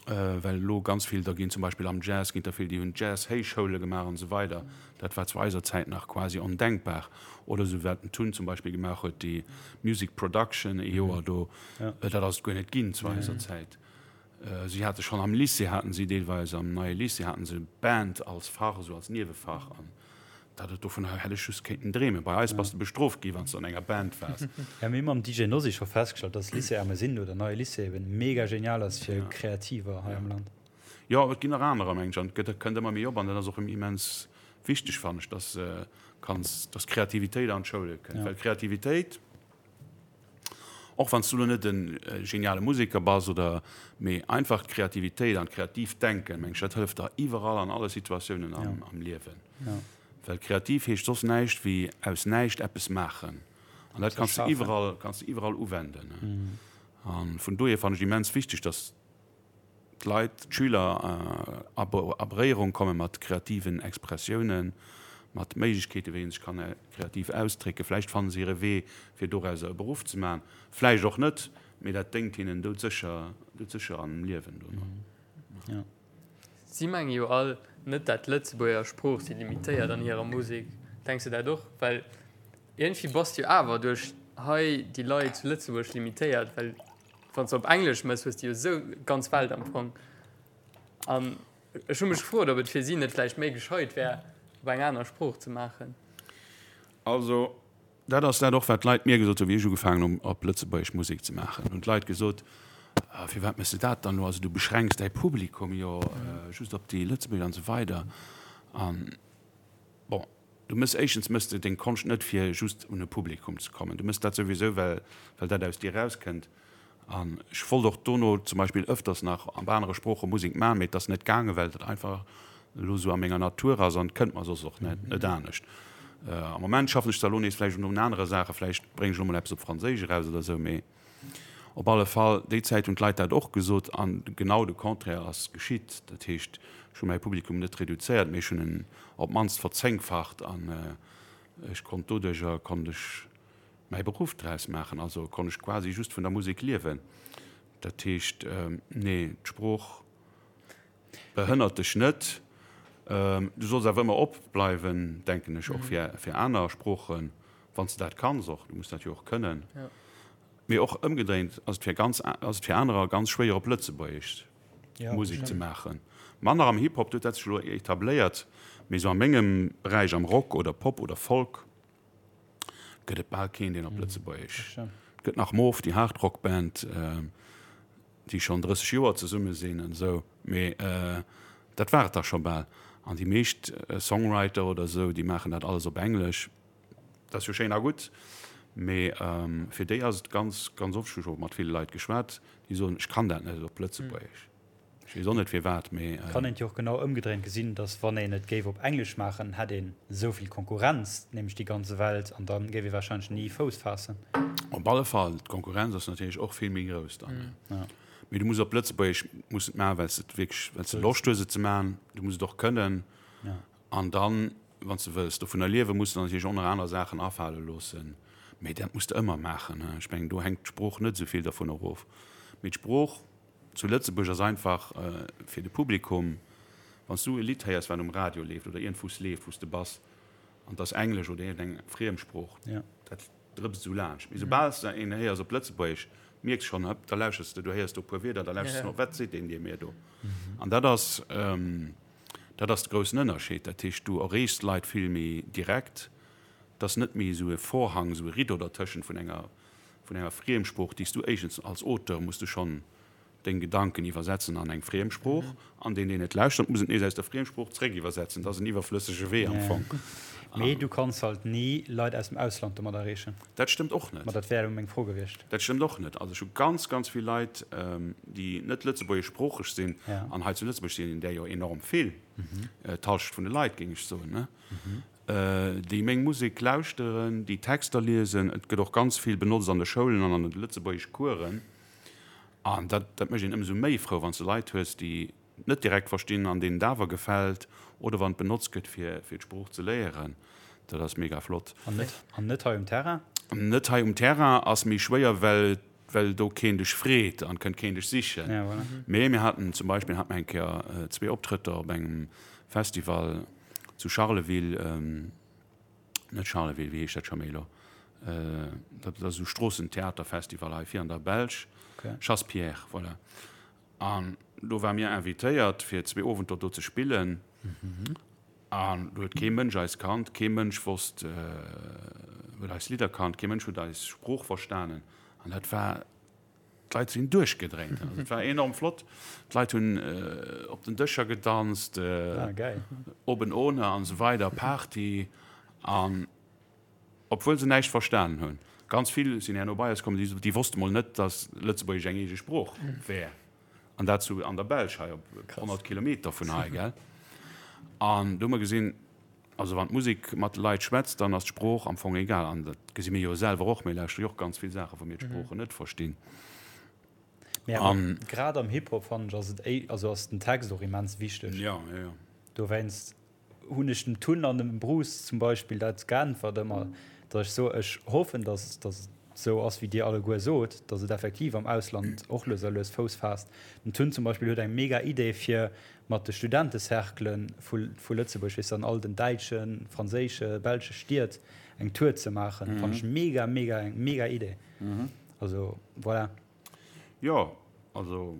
well elo ganz vill der ginn, zum Beispill am Jazz ginn der vill, déi hunn Jazz-Héichschoule gemaach an esou weider. Dat war zu eiser Zäit nach quasi ondenkbar. Oder esou wat den Tun zum Beispill gemaach huet, déi Music Production ee Joer do, dat ass et guer net ginn zu eiser Zäit. Si hate schonn am Lycée haten si deelweis, am neie Lycée haten se Band als Fach, esou als Niewefach an Dat et dovun hätt ech just kéinten dreemen. Bei eis bass de bestrooft gi wann s de an enger Band waars. Ja, mir hu mam DJ Nosy scho festgestallt, dass Lycée Ermesinde oder Neie Lycée eben mega genial ass fir Kreativer hei am Land. Jo, et ginn nach anerer, mengen ech, an et gëtt, kënnt ëmmer méi op an dat ass och immens wichteg, fannen ech, dass kanns, dass Kreativitéit an d'Schoule kënnt, well Kreativitéit, Och wann s du lo net e geniale Museker bass oder, mee einfach d'Kreativitéit an d'kreatiivt Denken, meng ech, dat hëlleft der iwwerall an alle Situatiounen am Liewen. Well kreativ heescht soss näischt wéi aus näischt eppes maachen. An dat kanns de iwwerall, kanns de iwwerall uwenden. A vun dohier fannen ech immens wichteg, dass d'Leit, d'Schüler a Beréierung komme mat kreativen Expressiounen, mat Méiglechkeeten, wéi ee sech kann kreativ ausdrécken. Vläicht fanne se hire Wee, fir dorauser e Beruff ze maachen, vläicht och net, mee dat déngt hinnen doudsécher, doudsécher am Liewen dono. Si menge jo all net, dat d'Lëtzebuerger Sprooch si limitéiert an hirer Musek. Denks de dat och? Well iergendwéi bass de jo awer duerch hei déi Leit zu Lëtzebuerg limitéiert, well Wann s de op Englesch mëss, hues de jo esou d'ganz Welt am Fong. An ech hu mech gefrot, ob et fir si net vläicht méi gescheit wär, op eng aner Sprooch ze maachen. Also, dat ass dat och, wat d'Leit mir gesot hunn, wéi ech ugefaangen hunn, op Lëtzebuergesch Musek ze maachen. Hunn d'Leit gesot, Firwat méchs de dat dann elo? Also, du beschränks däi Publikum jo just op déi Lëtzebuerger an esou weider. An bon. Du mëss, éischtens mëss de deng Konscht net fir just un e Publikum ze kommen. Du mëss dat souwisou well well dat aus dir erauskënnt. An ech wollt och dono zum Beispill ëfters nach op anere Sprooche Musek man, mee et ass net gaangen, well dat einfach elo esou a menger Natur ass an et kënnt mer soss och net net anescht. Am Moment schaffen ech zwar elo nees vläicht un anere Saachen, vläicht bréngen ech elo mol eppes op Franséisch eraus oder esou, mee Op alle Fall, déi Zäit hunn d'Leit dat och gesot an genau de Contraire ass geschitt. Dat heescht, ech hu mäi Publikum net reduzéiert, mee ech hunn en op d'mannst verzéngfacht an ech konnt doduercher konnt ech mäi Beruff draus maachen. Also konnt ech quasi just vun der Musek liewen. Dat heescht, nee, d'Sprooch behënnert dech net. Du solls awer ëmmer op bleiwen, denken ech, och fir fir aner Sproochen, wann s de dat kanns och. Du muss dat jo och kënnen. Mee och ëmgedréint ass et fir ganz ass et fir anerer ganz schwéier op Lëtzebuergesch Musek ze maachen. Manner am Hip-Hop, do huet dat sech elo etabléiert, mee esou a mengem Beräich, am Rock oder Pop oder Folk, gëtt et bal keen, deen op Lëtzebuergesch. Et gëtt nach Moof, déi Hardrock-Band, déi schonn 30 Joer zesumme sinn an esou, mee dat war et da scho bal. An déi meescht Songwriter oder esou, déi maachen dat alles op Englesch. Dat ass jo schéin a gutt, mee fir déi ass et ganz, ganz oft, ech hu scho mat ville Leit geschwat, déi soen, ech kann dat net op Lëtzebuergesch. Ech weess och net firwat, mee. Kann een et jo och genau ëmgedréint gesinn, dass wann een et géif op Englesch maachen, hätt een esou vill Konkurrenz, nämlech déi ganze Welt, an da géif ee warscheinlech ni Fouss faassen. Op alle Fall, d'Konkurrenz ass natierlech och vill méi grouss dann. Mee du muss op Lëtzebuergesch muss et maachen, well s de et wierklech, well s de Loscht hues et ze maachen. Du muss et och kënnen. An dann, wann s de wëlls dovunner liewen, muss de natierlech och nach aner Saachen afale loossen. Mee dat muss de ëmmer maachen. Ech mengen, do hänkt d'Sprooch net esou vill dervun erof. Mee d'Sprooch zu Lëtzebuerg ass einfach fir de Publikum, wann s du e Lidd héiers, wat um Radio leeft oder iergendwou s leeft, wou s de bass, an et ass Englesch oder iergendeng Friemsprooch, dat drëpst esou laanscht. Mee soubal s de een héiers op Lëtzebuergesch, mierks schonn, hëpp, da lauschers de, du héiers do e puer Wierder, da lauschers de no, wat seet deen dir mir do? An dat ass, dat ass de groussen Ënnerscheed. Dat heescht, du erreechs d'Leit vill méi direkt. Et ass net méi esou e Vorhang, esou e Rideau dertëschent vun enger vun enger Friemsprooch, déi s du éischtens als Auteur muss du schonn deng Gedanken iwwersetzen an eng Friemsprooch, an deen, deen et lauschtert, muss et nees aus der Friemsprooch zréck iwwersetzen. Dat ass en iwwerflëssege Wee am Fong. Mee du kanns halt ni Leit aus dem Ausland domat erreechen. Dat stëmmt och net. Ma dat wär elo meng Fro gewiescht. Dat stëmmt och net. Also ech hu ganz, ganz vill Leit, déi net lëtzebuergeschsproocheg sinn, an hei zu Lëtzebuerg sinn där jo enorm vill, d'Hallschent vun de Leit, géing ech soen, ne? Déi meng Musek lauschteren, déi Texter liesen. Et gëtt och ganz vill benotzt an de Schoulen an an de Lëtzebuergesch-Coursen. An dat, dat mécht een ëmsou méi frou, wann s de Leit hues, déi et net direkt verstinn an deenen et awer gefält oder wann et benotzt gëtt, fir, fir d'Sprooch ze léieren. Dat ass mega flott. An net, an net hei um Terrain? Net hei um Terrain ass méi schwéier, well, well do keen dech freet an kënnt keen dech sichen. Ja, voilà. Mee mir haten zum Beispill, hate mer eng Kéier zwee Optrëtter op engem Festival, Zu Charleville, net Charleville, wéi heescht dat scho méi elo? Dat ass esou Stroossentheaterfestival hei vir an der Belsch. Chassepierre, voilà. An do ware mir invitéiert, fir zwee Owenter do ze spillen. An do huet kee Mënsch eis kannt, kee Mënsch wosst, huet eis Lidder kannt, kee Mënsch huet eis Sprooch verstanen. An dat war D'Leit sinn duerchgedréint. Also et war enorm flott. D'Leit hunn op den Dëscher gedanzt, oben ohne an esou weider, Party. An obwuel se näischt verstanen hunn. Ganz vill sinn herno bei eis komm, déi wosste mol net, datt Lëtzebuergesch eng eege Sprooch wär. An dat zu an der Belsch hei op 100 Kilometer vun hei, gell. An do hu mer gesinn, Also wann d'Musek mat de Leit schwätzt, dann ass d'Sprooch am Fong egal. An dat gesi mir jo selwer och, mir lauschtere jo och ganz vill Saachen, wou mir d'Sproochen net verstinn. Mee awer grad am Hip-Hop fannen ech ass et éi, also ass den Text och immens wichteg. Jo, jo, jo. Dowéinst hunn ech dem Tun an dem Bruce zum Beispill dat geäntwert ëmmer, datt ech soe, ech hoffen, datt datt et esou ass wéi dir alleguer sot, datt et effektiv am Ausland och lues a lues Fouss faasst. Den Tun zum Beispill huet eng mega Idee fir mat de Studentecerclen vu Lëtzebuerg, weess de, an all den däitschen, franséische, belsche Stied eng Tour ze maachen, fannen ech mega, mega, eng mega Idee. Also, voilà. Jo, also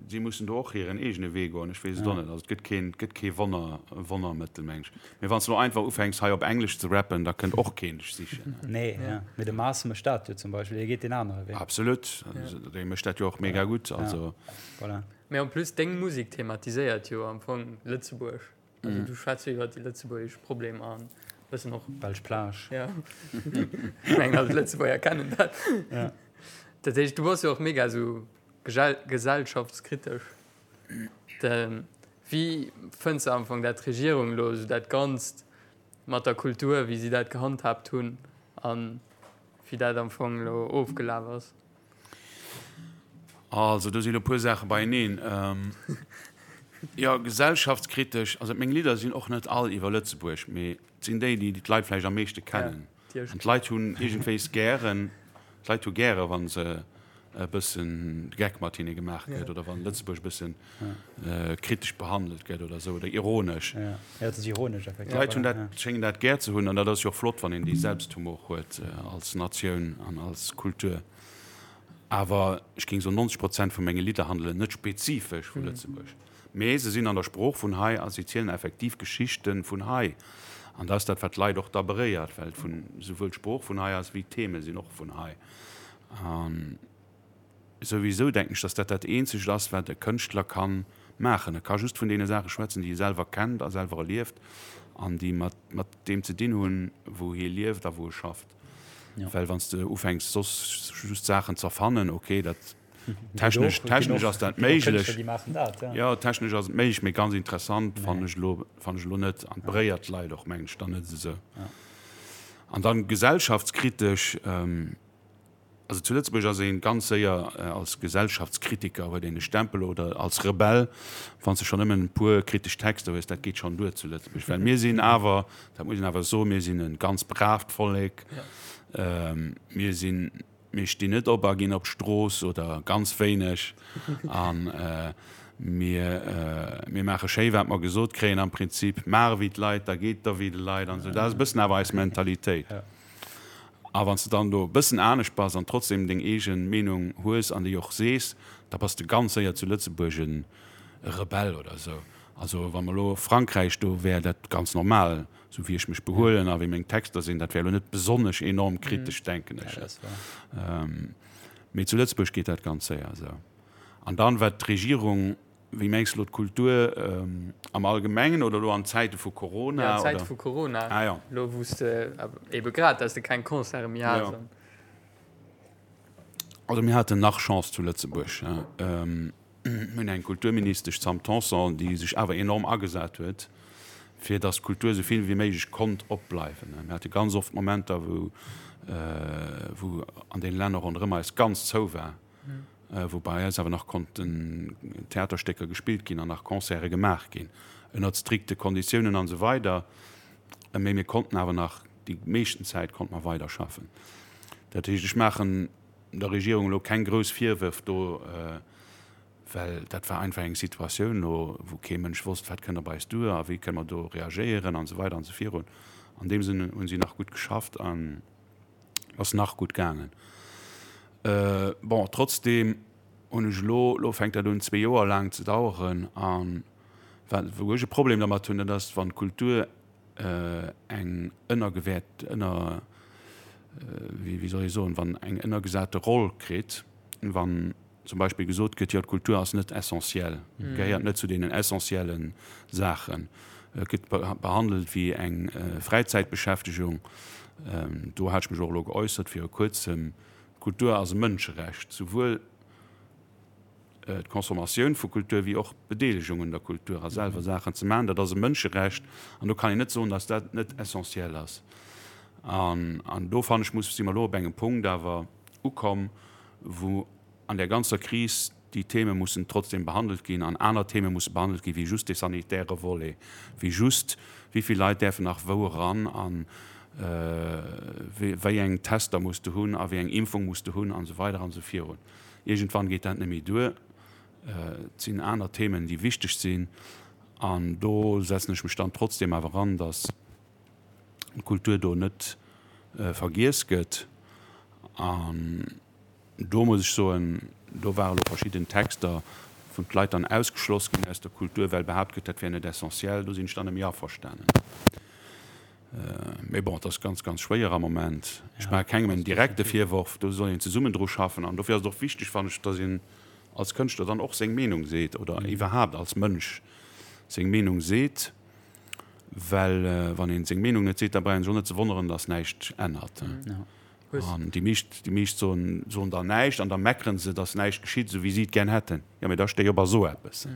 si mussen do och hiren eegene Wee goen. Ech weess et och net. Also et gëtt keen, et gëtt kee Wonner, Wonnermëttel, meng ech. Mee wann s de elo einfach ufänks hei op Englesch ze rappen, da kënnt och keen dech sichen. Nee, ja. Mee de Mars mécht dat jo zum Beispill, hie geet deen anere Wee. Absolut. Dee mécht dat jo och mega gutt. Also. Voilà. Mee en plus deng Musek thematiséiert jo am Fong Lëtzebuerg. Also du schwätz jo iwwer déi lëtzebuergesch Problemer an bëssen och. Belsch Plage. Ja. Ech mengen all d'Lëtzebuerger kennen dat. Ja. Dat heescht, du bass jo och mega esou gesellschaftskritesch. De, wéi fënns de am Fong dat d'Regierung elo esou dat Ganzt mat der Kultur, wéi si dat gehandhaabt hunn an wéi dat am Fong elo ofgelaf ass? Also do sinn elo e puer Saache beieneen. Jo, gesellschaftskritesch, also meng Lidder sinn och net all iwwer Lëtzebuerg, mee et sinn déi, déi d'Leit vläicht am meeschte kennen. An d'Leit hunn iergendwéis gären, d'Leit hu gäre wa se e bëssen de Geck mat hinne gemaach gëtt oder wann Lëtzebuerg e bëssen kritesch behandelt gëtt oder esou oder ironesch. D'Leit hunn dat, schéngen dat gär ze hunn an dat ass jo och flott, wann een dee Selbsthumor huet als Natioun an als Kultur. Awer ech géing soen, 90 Prozent vu menge Lidder handelen net spezifesch vu Lëtzebuerg, mee se sinn an der Sprooch vun hei a si zielen effektiv Geschichte vun hei. An dat ass dat, wat d'Leit och da beréiert, well et vun esouwuel d'Sprooch vun hei ass wéi d'Theme sinn och vun hei. A souwisou denken ech, datt dat dat Eenzegt ass, wat e Kënschtler ka maachen. E ka just vun deene Saache schwätzen, déi e selwer kennt a selwer erlieft an déi mat deem ze dinn hunn, wou hie lieft a wou e schafft. Well wann s de ufänks soss just Saachen z'erfannen, ok, dat technesch, technesch ass dat méiglech. Jo, technesch ass et méiglech, mee ganz interessant fannen ech elo, fannen ech elo net. An beréiert d'Leit och, mengen ech, dann net esou. An dann gesellschaftskritesch, Also zu Lëtzebuerg ass ee ganz séier als Gesellschaftskritiker, huet een e Stempel, oder als Rebell, wann s de schonn nëmmen e puer kritesch Texter hues, dat geet schonn duer zu Lëtzebuerg. Well mir sinn awer, dat muss een awer soen, mir sinn e ganz braavt Vollek. Mir sinn, mir stinn net op a ginn op d'Strooss oder ganz wéineg. A mir, mir maache schéi wat mer gesot kréien am Prinzip. Maach ewéi d'Leit, da geet et der wéi de Leit an esou. Dat ass e bëssen awer eis Mentalitéit. A wann s de dann do e bëssen anescht bass an trotzdem deng eege Meenung hues an déi och sees, da bass de ganz séier zu Lëtzebuerg e Rebell oder esou. Also wa mer elo Frankräich, do wär dat ganz normal, esou wéi ech mech behuelen a wéi meng Texter sinn, dat wär elo net besonnesch enorm kritesch, denken ech. Mee zu Lëtzebuerg geet dat ganz séier esou. An dann, wat d'Regierung Wéi mengs de elo d'Kultur am Allgemengen oder elo an Zäite vu Corona? Ja, an Zäite vu Corona. Ah, ja. Elo wou s de ebe grad, dass de keng Concerte méi has. Ja. Also mir haten nach Chance zu Lëtzebuerg. Mir hunn eng Kulturministesch, d'Sam Tanson, déi sech awer enorm agesat huet, fir datt d'Kultur esou vill wéi méiglech konnt opbleiwen. Mir hate ganz oft Momenter, wou wou an deene Länner ronderëm eis ganz zou war. wou bei eis awer nach konnten Theaterstécker gespillt ginn an nach Concerte gemaach ginn, ënnert strikte Konditiounen an esou weider, mee mir konnten awer nach, déi meeschten Zäit konnte mer weiderschaffen. Dat heescht, ech maachen der Regierung elo keng grouss Virwërf do, well dat war einfach eng Situatioun elo, wou kee Mënsch wosst, wat kënnt op eis duer a wéi kënne mer do reagéieren an esou weider an esou virun. An deem Sënn hu si nach gutt geschafft an. Ass nach gutt gaangen. Bon, trotzdeem hunn ech elo, elo fänkt dat un zwee Joer laang ze daueren an wat, wou ech e Problem dermat hunn, dat ass, wann d'Kultur eng ënnergewäert, ënner, wéi, wéi soll ech soen, wann eng ënnergesate Roll kritt, wann zum Beispill gesot gëtt, jo d'Kultur ass net essentiell, gehéiert net zu deenen essentielle Saachen, gëtt behandelt wéi eng Fräizäitbeschäftegung. Do hat ech mech och elo geäussert viru kuerzem, Kultur ass e Mënscherecht, souwuel d'Consommatioun vu Kultur wéi och d'Bedeelegung un der Kultur a selwer Saachen ze maachen, dat ass e Mënscherecht an do kann een net soen, datt dat net essentiell ass. An do fannen ech, muss, si mer elo op engem Punkt awer ukomm, wou an där ganzer Kris déi Theme mussen trotzdem behandelt ginn an aner Theme musse behandelt gi wéi just dee sanitäre Volet, wéi just wéi vill Leit däerfen nach wou eran a wéi eng Tester muss de hunn a wéi eng Impfung muss de hunn an esou weider an esou virun. Iergendwann geet dat net méi duer. Et sinn aner Themen, déi wichteg sinn an do setzen ech mech dann trotzdem awer an, datt d'Kultur do net vergiess gëtt. An do muss ech soen, do ware lo verschidden Texter, wou d'Leit dann ausgeschloss ginn aus der Kultur, well behaapt gëtt, dat wär net essentiell. Do sinn ech dann net méi averstanen. Mee bon, et ass ganz, ganz schwéier am Moment. Ech maache kengem en direkte Virworf, do soll een zesummen dru schaffen. An dofir ass et och wichteg, fannen ech, datt een als Kënschtler dann och seng Meenung seet oder iwwerhaapt als Mënsch seng Meenung seet. Well wann ee seng Meenung net seet, da brauch een sech och net ze wonneren, datt näischt ännert. An déi meescht, déi meescht soen, soen dann näischt an da meckeren se, datt näischt geschitt, esou wéi si et gär hätten. Jo, mee da stéi op a so eppes.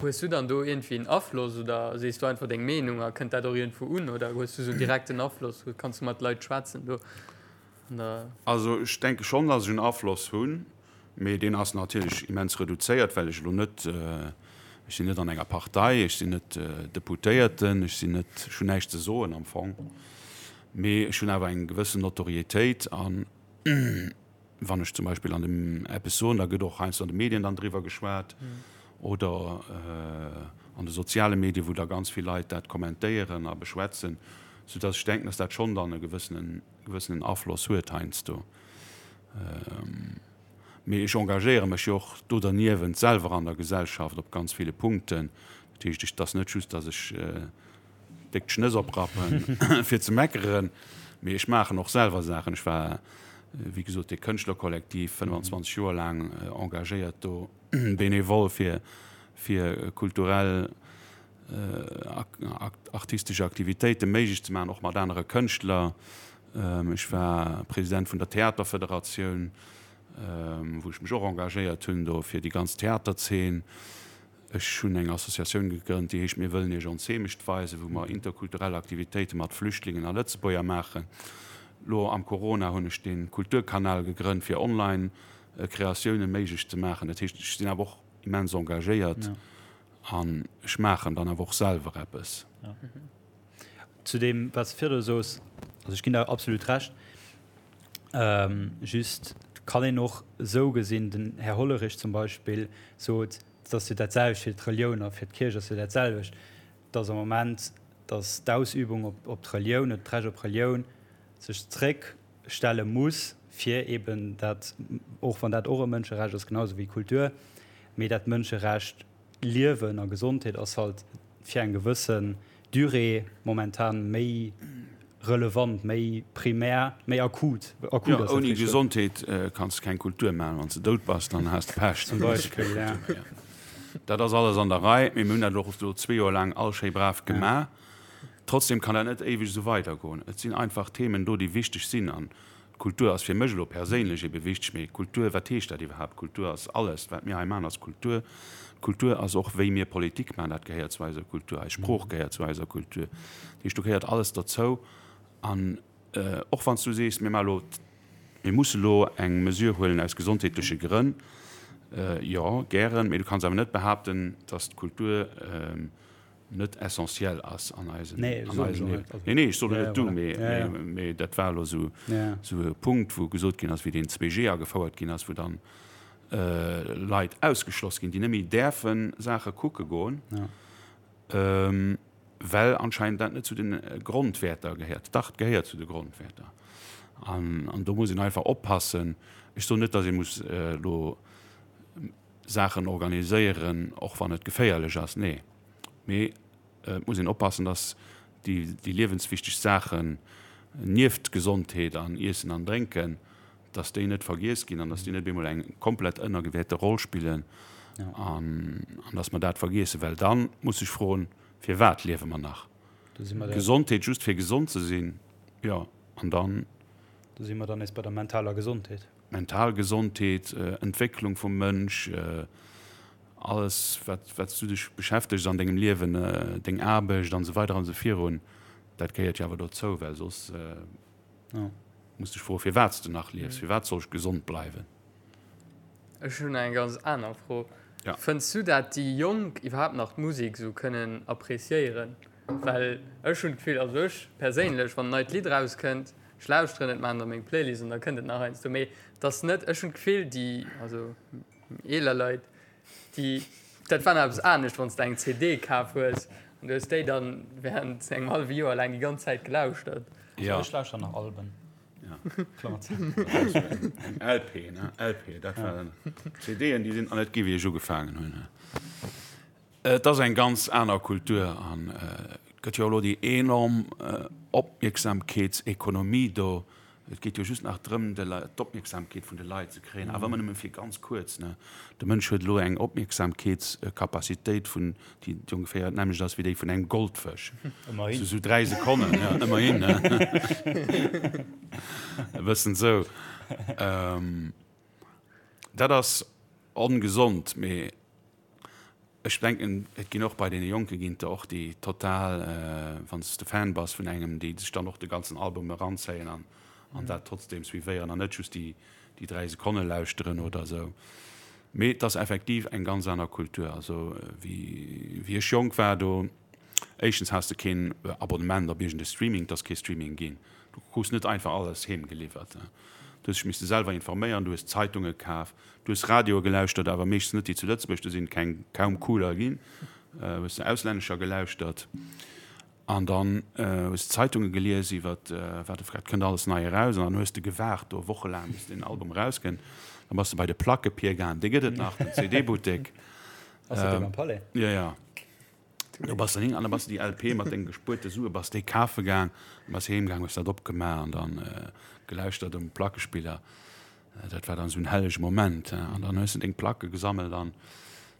Hues du dann do iergendwéi en Afloss oder sees du einfach deng Meenung a kënnt dat och iergendwou un oder hues du esou en direkten Afloss, kanns du mat Leit schwätzen do an der. Also ech denke schonn, datt ech en Afloss hunn, mee deen ass natierlech immens reduzéiert, well ech elo net, ech sinn net an enger Partei, ech sinn net Deputéierten, ech sinn net, ech hunn näischt ze soen am Fong. Mee ech hunn awer eng gewëssen Notorietéit an wann ech zum Beispill an dem eppes soen, da gëtt och heiansdo an de Medien dann driwwer geschwat oder an de soziale Medien, wou da ganz vill Leit dat kommentéieren a beschwätzen, soudass ech denken, dass dat schonn dann e gewëssenen, gewëssenen Afloss huet heiansdo. Mee ech engagéiere mech jo och do derniewent selwer an der Gesellschaft op ganz ville Punkten. Dat heescht, et ass net just, dass ech déck d'Schnëss oprappen, fir ze meckeren, mee ech maachen och selwer Saachen. Ech war, wéi gesot, dee Kënschtlerkollektiv 25 Joer laang engagéiert do, bénévol fir, fir kulturell, artistesch Aktivitéite méiglech ze maachen, och mat anere Kënschtler. Ech war President vun der Theaterfederatioun, wou ech mech och engagéiert hunn do fir déi ganz Theaterzeen. Ech hunn eng Associatioun gegrënnt, déi heescht Mir wëllen Iech ons Heemecht weisen, wou mer interkulturell Aktivitéite mat Flüchtlingen a Lëtzebuerger maachen. Lo am Corona hunn ech de Kulturkanal gegrënnt, fir online Kreatioune méiglech ze maachen. Dat heescht, ech sinn awer och immens engagéiert an ech maachen dann awer och selwer eppes. Zu deem, wat s de virdru soos, also ech ginn der absolut Recht. Just kann een och esou gesinn, den Här Hollerich zum Beispill sot, Et ass jo dat selwecht fir d'Relioun a fir d'Kierch ass jo dat selwecht, dass am Moment, dass d'Ausübung op, op d'Relioun oder d'Recht op Relioun sech zréckstelle muss, fir eben dat, och wann dat och e Mënscherecht ass, genau esou wéi Kultur, mee dat Mënscherecht Liewen a Gesondheet ass halt fir eng gewëssen Durée momentan méi relevant, méi primär, méi akut. Akut ass dat Ouni richteg. Gesondheet kanns de keng Kultur maachen. Wann s de dout bass, dann has de Pech. Zum Beispill, ja. Dat ass alles an der Rei, mee mir hunn dat och elo zwee Joer laang all schéi brav gemaach. Trotzdem kann dat net éiweg esou weidergoen. Et sinn einfach Themen do, déi wichteg sinn. An Kultur ass fir mech elo perséinlech ebe wichteg, mee Kultur, wat heescht dat iwwerhaapt? Kultur ass alles, wat mir hei maachen ass Kultur. Kultur ass och wéi mir Politik maachen, dat gehéiert zu eiser Kultur, eis Sprooch gehéiert zu eiser Kultur. Dat heescht, do gehéiert alles dozou. An och wann s du sees, mir maache elo, mir musse elo eng Mesure huelen aus gesondheetleche Grënn, jo, gären, mee du kanns awer net behaapten, datt d'Kultur, net essentiell ass an eisem Nee, an eisem Liewen. Nee, nee, ech soen net du, mee, ja, ja. mee dat war elo sou, ja. sou e Punkt, wou gesot ginn ass, wéi deen 2G agefouert ginn ass, wou dann äh, Leit ausgeschloss ginn, déi net méi däerfe Saache kucke goen, ja. ähm, well anscheinend dat net zu den äh, Grondwäerter gehéiert. Dach, et gehéiert zu de Grondwäerter. An, an do muss een einfach oppassen. Ech soen net, datt ee muss äh, elo Saachen organiséieren, och wann et geféierlech ass, nee. Mee et muss een oppassen, dass déi, déi liewenswichteg Saachen nieft Gesondheet an Iessen an Drénken, dass déi net vergiess ginn an dass déi net op eemol eng komplett ënnergewäerte Roll spillen an, an dass mer dat vergiessen. Well da muss sech froen, Firwat liewe mer nach? Gesondheet just fir gesond ze sinn, jo, an dann. Do si mer dann nees bei der mentaler Gesondheet. Mental Gesondheet, Entwécklung vum Mënsch, alles wat wat s du dech beschäftegs an dengem Liewen, deng Aarbecht an esou weider an esou virun, dat gehéiert jo awer dozou, well soss muss dech froen, firwat s de nach liefs, firwat soll ech gesond bleiwen? Ech hunn eng ganz aner Fro. Fënns du dat déi Jonk iwwerhaapt nach d'Musek esou kënnen appreciéieren? Well ech hunn d'Gefill, also ech perséinlech, wann en neit Lidd erauskënnt, ech lauschteren et, maachen et a meng Playlist an da kënnt et nach heiansdo. Mee et ass net, ech hunn d'Gefill, déi, also eeler Leit, déi, dat war nach eppes anescht, wann s de eng CD kaf hues an du hues déi dann während engem hallwe Joer laang déi ganz Zäit gelauschtert. Also ech lauschteren nach Alben. Klammer zou. Eng LP, ne? LP, dat war CDen, déi sinn nach net gi wéi ech ugefaangen hunn. Et ass eng ganz aner Kultur an et gëtt jo elo déi enorm Opmierksamkeetsekonomie do. Et geet jo just nach drëm, de Leit, d'Opmierksamkeet vun de Leit ze kréien, awer ëmmer nëmme fir ganz kuerz, ne. De Mënsch huet elo eng Opmierksamkeetscapacitéit vun, déi ongeféier d'nämmlecht ass wéi déi vun engem Goldfësch. Ëmmerhin. Sou, sou 3 Sekonnen, ja, ëmmerhin, ne. E bëssen sou. Dat ass ongesond, mee Ech denken, et ginn och bei deene Jonke ginn et der och, déi total, wann s de Fan bass vun engem, déi sech dann och de ganzen Album eranzéien an an dat trotzdeem suivéieren an net just déi déi 3 Sekonne lauschteren oder esou. Mee et ass effektiv eng ganz aner Kultur. Also wéi wéi ech jonk war, do éischtens has de keen Abonnement op iergend e Streaming, et ass kee Streaming ginn. Du krus net einfach alles heem geliwwert. Du hues dech misste selwer informéieren, du hues Zeitunge kaf, Du hues Radioe gelauschtert, awer meeschtens net déi zu Lëtzebuerg, do sinn keng, kaum cooler ginn. Hues de auslännescher gelauschtert an dann hues de Zeitunge gelies iwwer wat wat kënnt alles nei eraus an dann hues de gewaart do wochelaang bis deen Album erauskënnt. Dann bass de bei de Plackepier gaang, dee gëtt et nach, den CD-Buttek. Ass dat dee beim Palais? Jo, jo. Do bass de hin an da bass de déi LP mat denge gespuerte Sue bass déi kafe gaang, bass heem gaang, hues dat opgemaach an dann gelauschtert um Plackespiller. Dat war dann esou en hellege Moment. An dann hues de deng Placke gesammelt an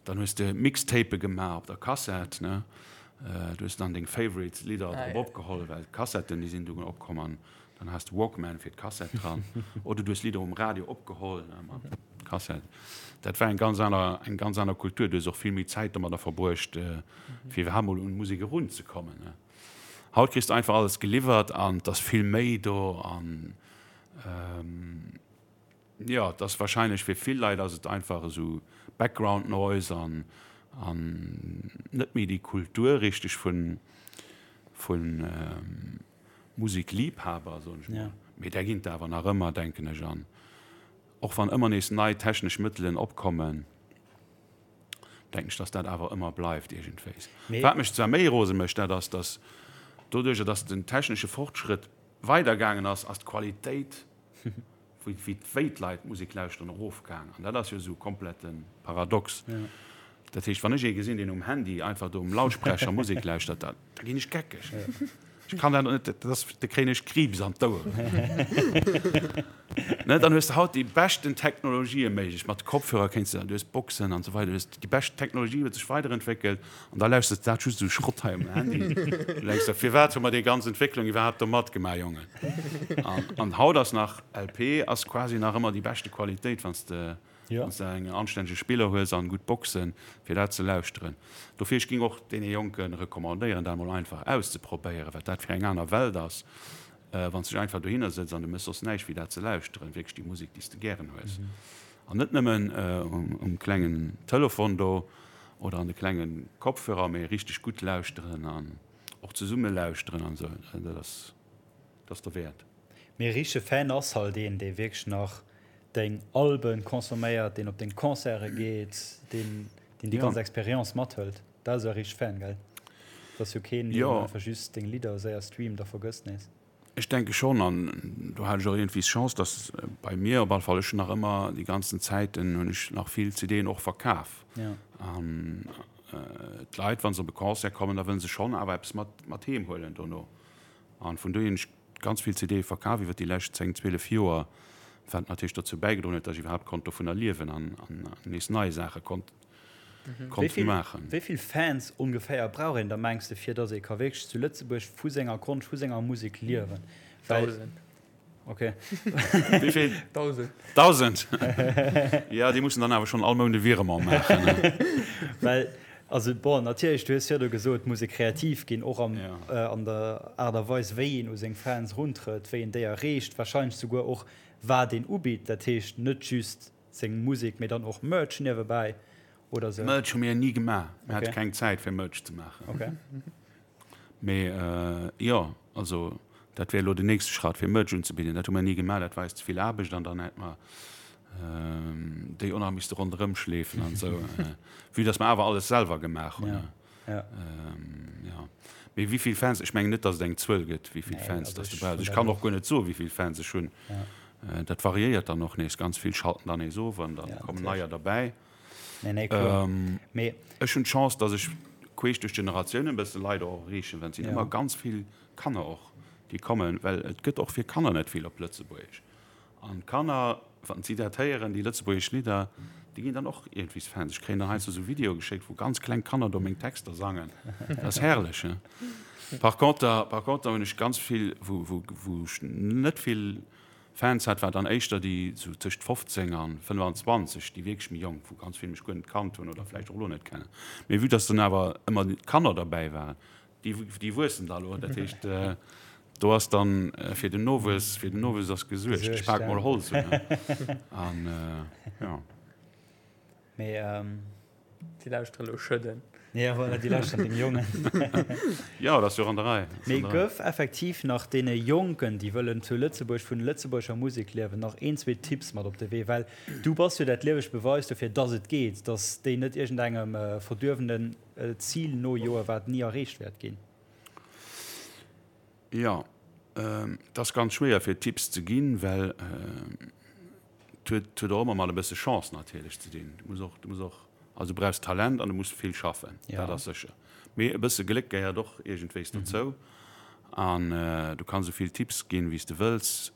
dann hues de Mixtape gemaach op der Kassett, ne. Du hues dann deng favorite Lidder drop opgeholl, well d'Kassetten déi sinn dunn opkomm an dann has de Walkman fir d'Kassett dran. Oder du hues Lidder um Radio opgeholl, ne, mat Kassett. Dat war eng ganz aner, eng ganz aner Kultur. Du hues och vill méi Zäit domadder verbruecht, fir iwwerhaapt mol un Musek erunzekommen, ne. Haut kriss de einfach alles geliwwert an 't ass vill méi do an Jo, et ass wahrscheinlech fir vill Leit ass et einfach esou Background Noise an an net méi déi Kultur richteg vun vun Musikliebhaber soen ech mol. Mee där ginn et awer nach ëmmer denken ech an och wann ëmmer nees nei technesch Mëttelen opkommen denken ech dass dat awer ëmmer bleift iergendwéis. Wat mech zwar méi rose mécht dat ass dass doduercher dass den technesche Fortschrëtt weider gaangen ass, ass d'Qualitéit wéi wéi d'Leit Musek lauschteren erofgaang. An dat ass jo esou komplette Paradox. Dat heescht, wann ech ee gesinn, deen um Handy einfach do um Lautsprecher Musek lauschtert, da da ginn ech geckeg. Ech kann dat net, dat ass, da kréien ech Kriibs an d'Oueren. Ne, dann hues de haut déi beschten Technologië méiglech, mat Kopfhörer kéints de, du hues Boxen an esou weider, du hues déi bescht Technologie huet sech weiderentwéckelt an da lauschters de dat just esou Schrott hei um Handy. Du denks der, firwat hu mer déi ganz Entwécklung iwwerhaapt do matgemaach, Jongen? An, an haut ass nach LP ass quasi nach ëmmer déi beschte Qualitéit, wann s de, wann s de eng anstännege Spiller hues an gutt Boxen, fir dat ze lauschteren. Dofir, ech géing och deene Jonke recommandéieren, dat emol einfach auszeprobéieren, wat dat fir eng aner Welt ass. Wann s de dech einfach dohinner sëtz an du méchs soss näischt wéi dat ze lauschteren, wierklech déi Musek, déi s de gären hues. An net nëmmen um klengen Telefon do oder an de klenge Kopfhörer, mee richteg gutt lauschteren an och zesumme lauschteren an esou, dat ass, dat ass derwäert. Mee e richtege Fan ass halt een, dee wierklech nach deng Alben consomméiert, deen op deng Concerte geet, deen deen déi ganz Experience mathëlt. Dat ass e richteg Fan, gell? Dat ass jo keen, deen einfach just deng Lidder séier streamt a vergësst nees. Ech denke schonn, an do hat ech och iergendwéi d'Chance, dass bei mir op alle Fall, ech hunn nach ëmmer déi ganzen Zäiten hunn ech nach vill CDen och verkaf. An d'Leit, wa se op e Concert kommen, da wëlle se schonn awer eppes mat mat heem huelen dono. An vun dohier hunn ech ganz vill CDe verkaf iwwer déi lescht 10, 12 Joer, wat natierlech dozou bäigedroen huet, dass ech iwwerhaapt konnt dovunner liewen an nees nei Saache konnt konnt maachen. Wéi vill Fans ongeféier brauch een da mengs de fir dass ee ka wierklech zu Lëtzebuerg vu senger Konscht, vu senger Musek liewen? Dausend. Ok. Wéi vill? Dausend. Dausend! Jo, déi mussen dann awer schonn all Mount e Virement maachen. Well, also bon, natierlech, du hues virdu gesot, et muss ee kreativ ginn, och am, an der Aart a Weis, wéi een u seng Fans eruntrëtt, wéi een déi erreecht, warscheinlech souguer och wat een ubitt, dat heescht net just Seng Musek, mee dann och Merch niewebäi oder sou? Merch hu mir ni gemaach. Mir hate keng Zäit fir Merch ze maachen. Okay. Mee jo, also dat wär elo den nächste Schratt fir Merch unzebidden. Dat hu mir ni gemaach, dat war eis ze vill Aarbecht an dann hätt mer déi och nach misste ronderëm schleefen an esou. Vue dass mer awer alles selwer gemaach hunn. Ja. Jo. Mee wéi vill Fans, ech mengen net, datt et eng Zuel gëtt, wéi vill Fans datt du brauchs. Ech kann och guer net soen, wéi vill Fans ech hunn. Dat variéiert dann och nees. Ganz vill schalten dann nees of an da kommen neier derbäi. Ech hunn d'Chance, datt ech queesch duerch d'Generatiounen e bësse Leit och erreechen, well et sinn ëmmer ganz vill Kanner och. Déi kommen, well et gëtt och fir Kanner net vill op Lëtzebuergesch. An d'Kanner, wann si dat héieren, déi lëtzebuergesch Lidder, déi ginn dann och iergendwees Fans. Ech kréien dann heiansdo esou Videoe geschéckt, wou ganz kleng Kanner do meng Texter sangen. Dat ass herrlech, he? Par conter, par conter hunn ech ganz vill, wou, wou, wou ech net vill Fans hat, war dann éischter déi esou tëscht 15 an 25, déi wierklech méi jonk, wou ganz vill mech guer net kannt hunn oder vläicht och elo net kennen. Mee vue dass dann awer ëmmer Kanner derbäi waren, Déi, déi wuessen da lo. Dat heescht, do ass dann fir den Nowuess, fir den Nowuess ass gesuergt. Ech pak mol Holz un. An jo. Mee. Déi lauschteren elo Schëdden. Ja, voilà, déi lauschteren dem Jongen. Jo, dat ass jo och an der Rei. Mee gëff effektiv nach deene Jonken, déi wëllen zu Lëtzebuerg vun lëtzebuergescher Musek liewen, nach een, zwee Tipps mat op de Wee. Well du bass jo dat liewegt Beweis dofir, dass et geet, dass déi net iergendengem verduerwenen Zil nojoe wat ni erreecht wäert ginn? Jo, et ass ganz schwéier fir Tipps ze ginn, well et huet huet och ëmmer mat e bësse Chance natierlech ze dinn. Du muss och, du muss och, also du brauchs Talent an du muss vill schaffen, dat ass sécher. Mee e bësse Gléck gehéiert och iergendwéis dozou an du kanns esou vill Tipps ginn, wéi s de wëlls.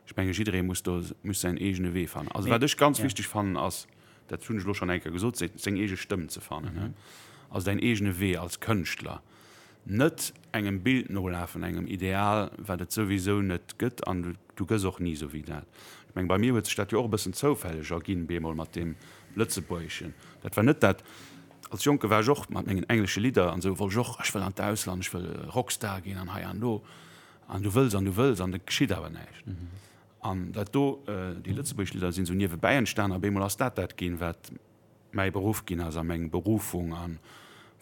Ech menge jidderee muss do muss säin eegene Wee fannen. Also wat ech ganz wichteg fannen ass, dat hunn ech elo schonn eng Kéier gesot, seng eege Stëmm ze fannen. Also däin eegene Wee als Kënschtler. Net engem Bild nolafen, engem Ideal, wat et souwisou net gëtt an du gëss och ni esou wéi dat. Ech menge bei mir huet sech dat jo och e bëssen zoufälleg erginn, bemol mat deem Lëtzebuergeschen. Dat war net dat, als Jonke war ech och mat mengen englesche Lidder an esou, wollt ech och, ech wëll an d'Ausland, ech wëll Rockstar ginn an hei an do. An du wëlls an du wëlls an et geschitt awer näischt. An dat do, déi lëtzebuergesch Lidder sinn esou niewebäi entstan a bemol ass dat dat ginn, wat mäi Beruff ginn ass a meng Berufung a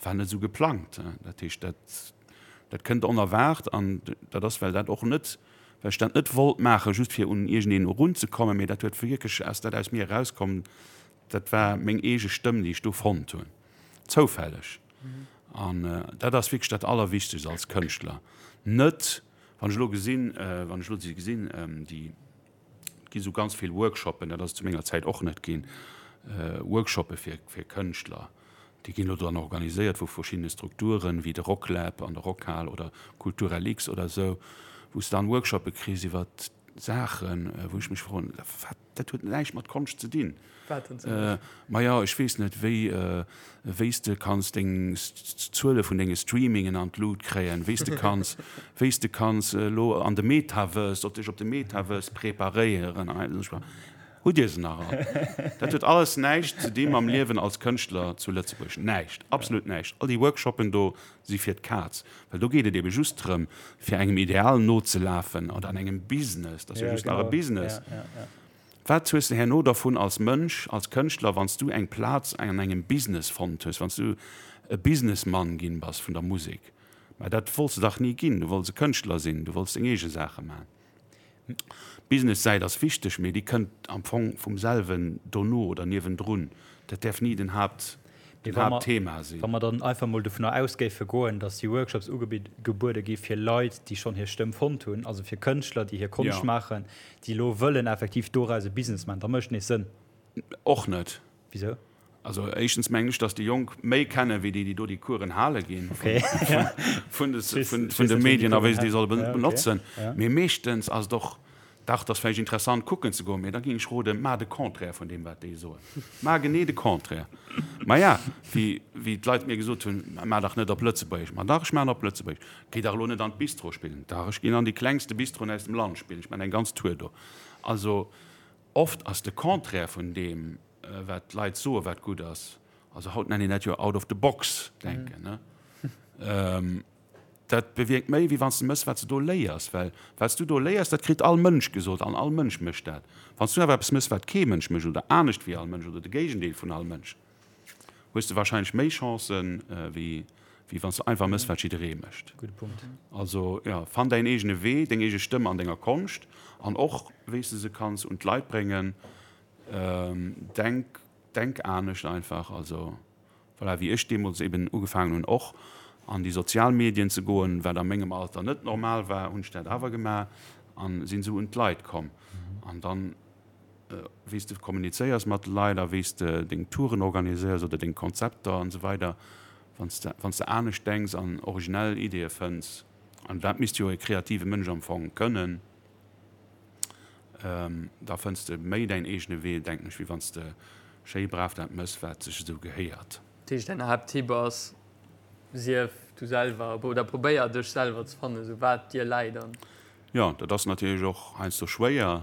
war net esou geplangt. Dat heescht, dat, dat kënnt onerwaart an dat ass, well dat och net, well ech dat net wollt maachen, just fir un iergendeen erunzekommen, mee dat huet wierklech, ass dat aus mir erauskomm, Dat war meng eege Stëmm, déi ech do fonnt hunn, zoufälleg. An dat ass wierklech dat Allerwichtegst als Kënschtler. Net, wann ech elo gesinn, wann ech elo si gesinn, déi, et gi sou ganz vill Workshoppen, dat ass et zu menger Zäit och net ginn, Workshoppe fir, fir Kënschtler, déi ginn elo dann organiséiert vu verschiddene Strukturen, wéi de Rocklab an der Rockhal oder Kulturlx oder esou, wou s de dann Workshoppe kriss iwwer Saachen, wou ech mech froen, wat? Dat huet näischt mat Konscht ze dinn. Wat denn zum Beispill? Maja, ech weess net, wéi, wéi s de kanns deng Zuele vun denge Streamingen an d'Lut kréien, wéi s de kanns, wéi s de kanns elo an de Metaverse, op dech op de Metaverse preparéieren an esou. Hutt Dir se nach all? Dat huet alles näischt ze di mam Liewen als Kënschtler zu Lëtzebuerg. Näischt, absolut näischt. All déi Workshoppen do si fir d'Kaz, well do geet et ebe just drëm, fir engem Ideal nozelafen oder an engem Business, dat ass jo just nach e Business. Wat hues de herno dervun als Mënsch, als Kënschtler, wann s du eng Plaz an engem Business fonnt hues, wann s du e Businessmann ginn bass vun der Musek? Mä dat wollts de dach ni ginn, du wollts e Kënschtler sinn, du wollts deng eege Saache maachen. D'Business-Säit ass wichteg, mee déi kënnt am Fong vum selwen dono oder niewendrun. Dat däerf ni den Haapt, den Haaptthema sinn. Wa mer dann einfach mol dovunner aus géife goen, datt déi Workshops ugebuede gi fir Leit, déi schonn hir Stëmm fonnt hunn, also fir Kënschtler, déi hir Konscht maachen, déi elo wëllen effektiv doraus e Business maachen, da mécht nees Sënn. Och net. Wisou? Also éischtens mengen ech, datt déi Jonk méi kennen, wéi déi, déi do déi Coursen hale ginn, vun de Medien a wéi se déi solle benotzen. Mee meeschtens ass et och, dach, et ass vläicht interessant kucken ze goen, mee da géing ech roden, maach de Contraire vun deem, wat déi soen. Maach genee de Contraire. Maja, wéi d'Leit mir gesot hunn, maach dach net op Lëtzebuergesch. Ma dach, ech maachen op Lëtzebuergesch. Géi dach elo net an d'Bistro spillen. Dach, ech ginn an déi klengste Bistroen aus dem Land spillen. Ech maachen eng ganz Tour do. Also oft ass de Contraire vun deem, wat d'Leit soen, wat gutt ass, also haut nennt een dat jo out of the box denken, ne? Dat bewierkt méi, wéi wann s de mëss, wat s de do léiers, well wat s du do léiers, dat kritt all Mënsch gesot an all Mënsch mécht dat. Wann s du awer eppes mëss, wat kee Mënsch mécht oder anescht wéi all Mënsch oder de Géigendeel vun all Mënsch, hues de wahrscheinlech méi Chancen, wéi wéi wann s de einfach mëss, wat jidderee mécht. Gudde Punkt. Also jo, fann däin eegene Wee, deng eege Stëmm an denger Konscht an och wéi s de se kanns un d'Leit bréngen. Denk, denk anescht einfach. Also voilà, wéi ech deemools eben ugefaangen hunn och an déi sozial Medien ze goen, wat a mengem Alter net normal war, hunn ech dat awer gemaach an sinn esou un d'Leit komm. An dann, wéi s de kommunizéiers mat de Leit a wéi s de deng Touren organiséiers oder deng Konzepter an esou weider, wann s de, wann s de anescht denks an originell Ideeë fënns. An dat misst jo e kreative Mënsch am Fong kënnen. Da fënns de méi däin eegene Wee, denken ech, wéi wann s de schéi brav dat mëss, wat sech esou gehéiert. Dat heescht, däin Haapttipp ass, Sief du selwer oder probéier dech selwer ze fannen, esou wat dir läit an. Jo, dat ass natierlech och heiansdo schwéier,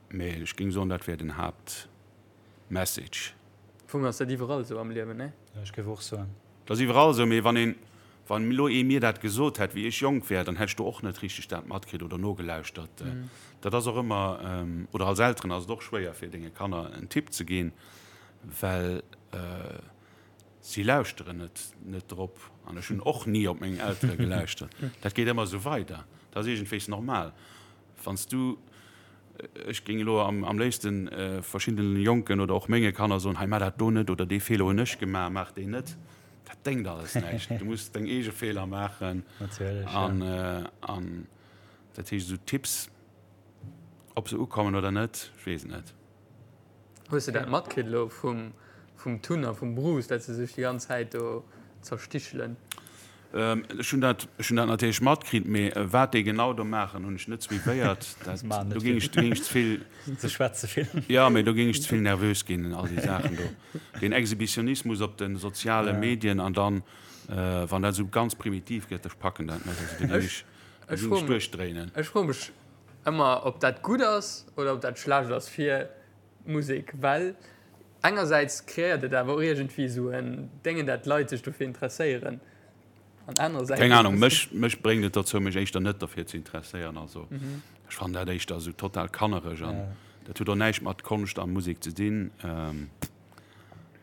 mee ech géing soen, dat wär den Haaptmessage. Am Fong ass dat iwwerall esou am Liewen, nee? Jo, ech géif och soen. Dat ass iwwerall esou, mee wann een, wann elo ee mir dat gesot hätt, wéi ech jonk wär, dann hätt ech do och net richteg dat matkritt oder nogelauschtert. Dat ass och ëmmer, oder als Elteren ass et och schwéier fir denge Kanner en Tipp ze ginn, well si lauschteren net net drop. An ech hunn och ni op meng Eltere gelauschtert. Dat geet ëmmer esou weider. Dat ass iergendwéis normal. Wann s du, ech géing elo am léifsten verschiddene Jonken oder och menge Kanner soen, hei maach dat do net oder dee Feeler hunn ech gemaach, maach deen net. Dat déngt alles näischt. Du muss deng eege Feeler maachen. Natierlech, ja. An dat heescht, esou Tipps, ob se ukommen oder net, ech weess et net. Hues de dat matkritt elo vum vum Tun a vum Bruce, dat se sech déi ganz Zäit do zerstichelen? Ech hunn dat, ech hunn dat natierlech matkritt, mee wat déi genau do maachen, hunn ech net suivéiert. Dat, do géing ech, do géing ech ze vill. Se schwätze vill. Jo, mee do géing ech ze vill nervös ginn, all déi Saachen do. Deen Exhibitionismus op de soziale Medien an dann, wann dat esou ganz primitiv gëtt, ech packen dat net. Also do géing ech, do géing ech duerchdréinen. Ech froe mech ëmmer, ob dat gutt ass oder ob dat schlecht ass fir d'Musek, well engersäits kreéiert et awer och iergendwéi esou en Déngen, dat d'Leit sech dofir interesséieren, an anerersäits. Keng Ahnung, mech, mech bréngt et dozou, mech éischter net derfir ze interesséieren. Also ech fannen dat éischter esou total kannereg an dat huet och näischt mat Konscht a Musek ze dinn.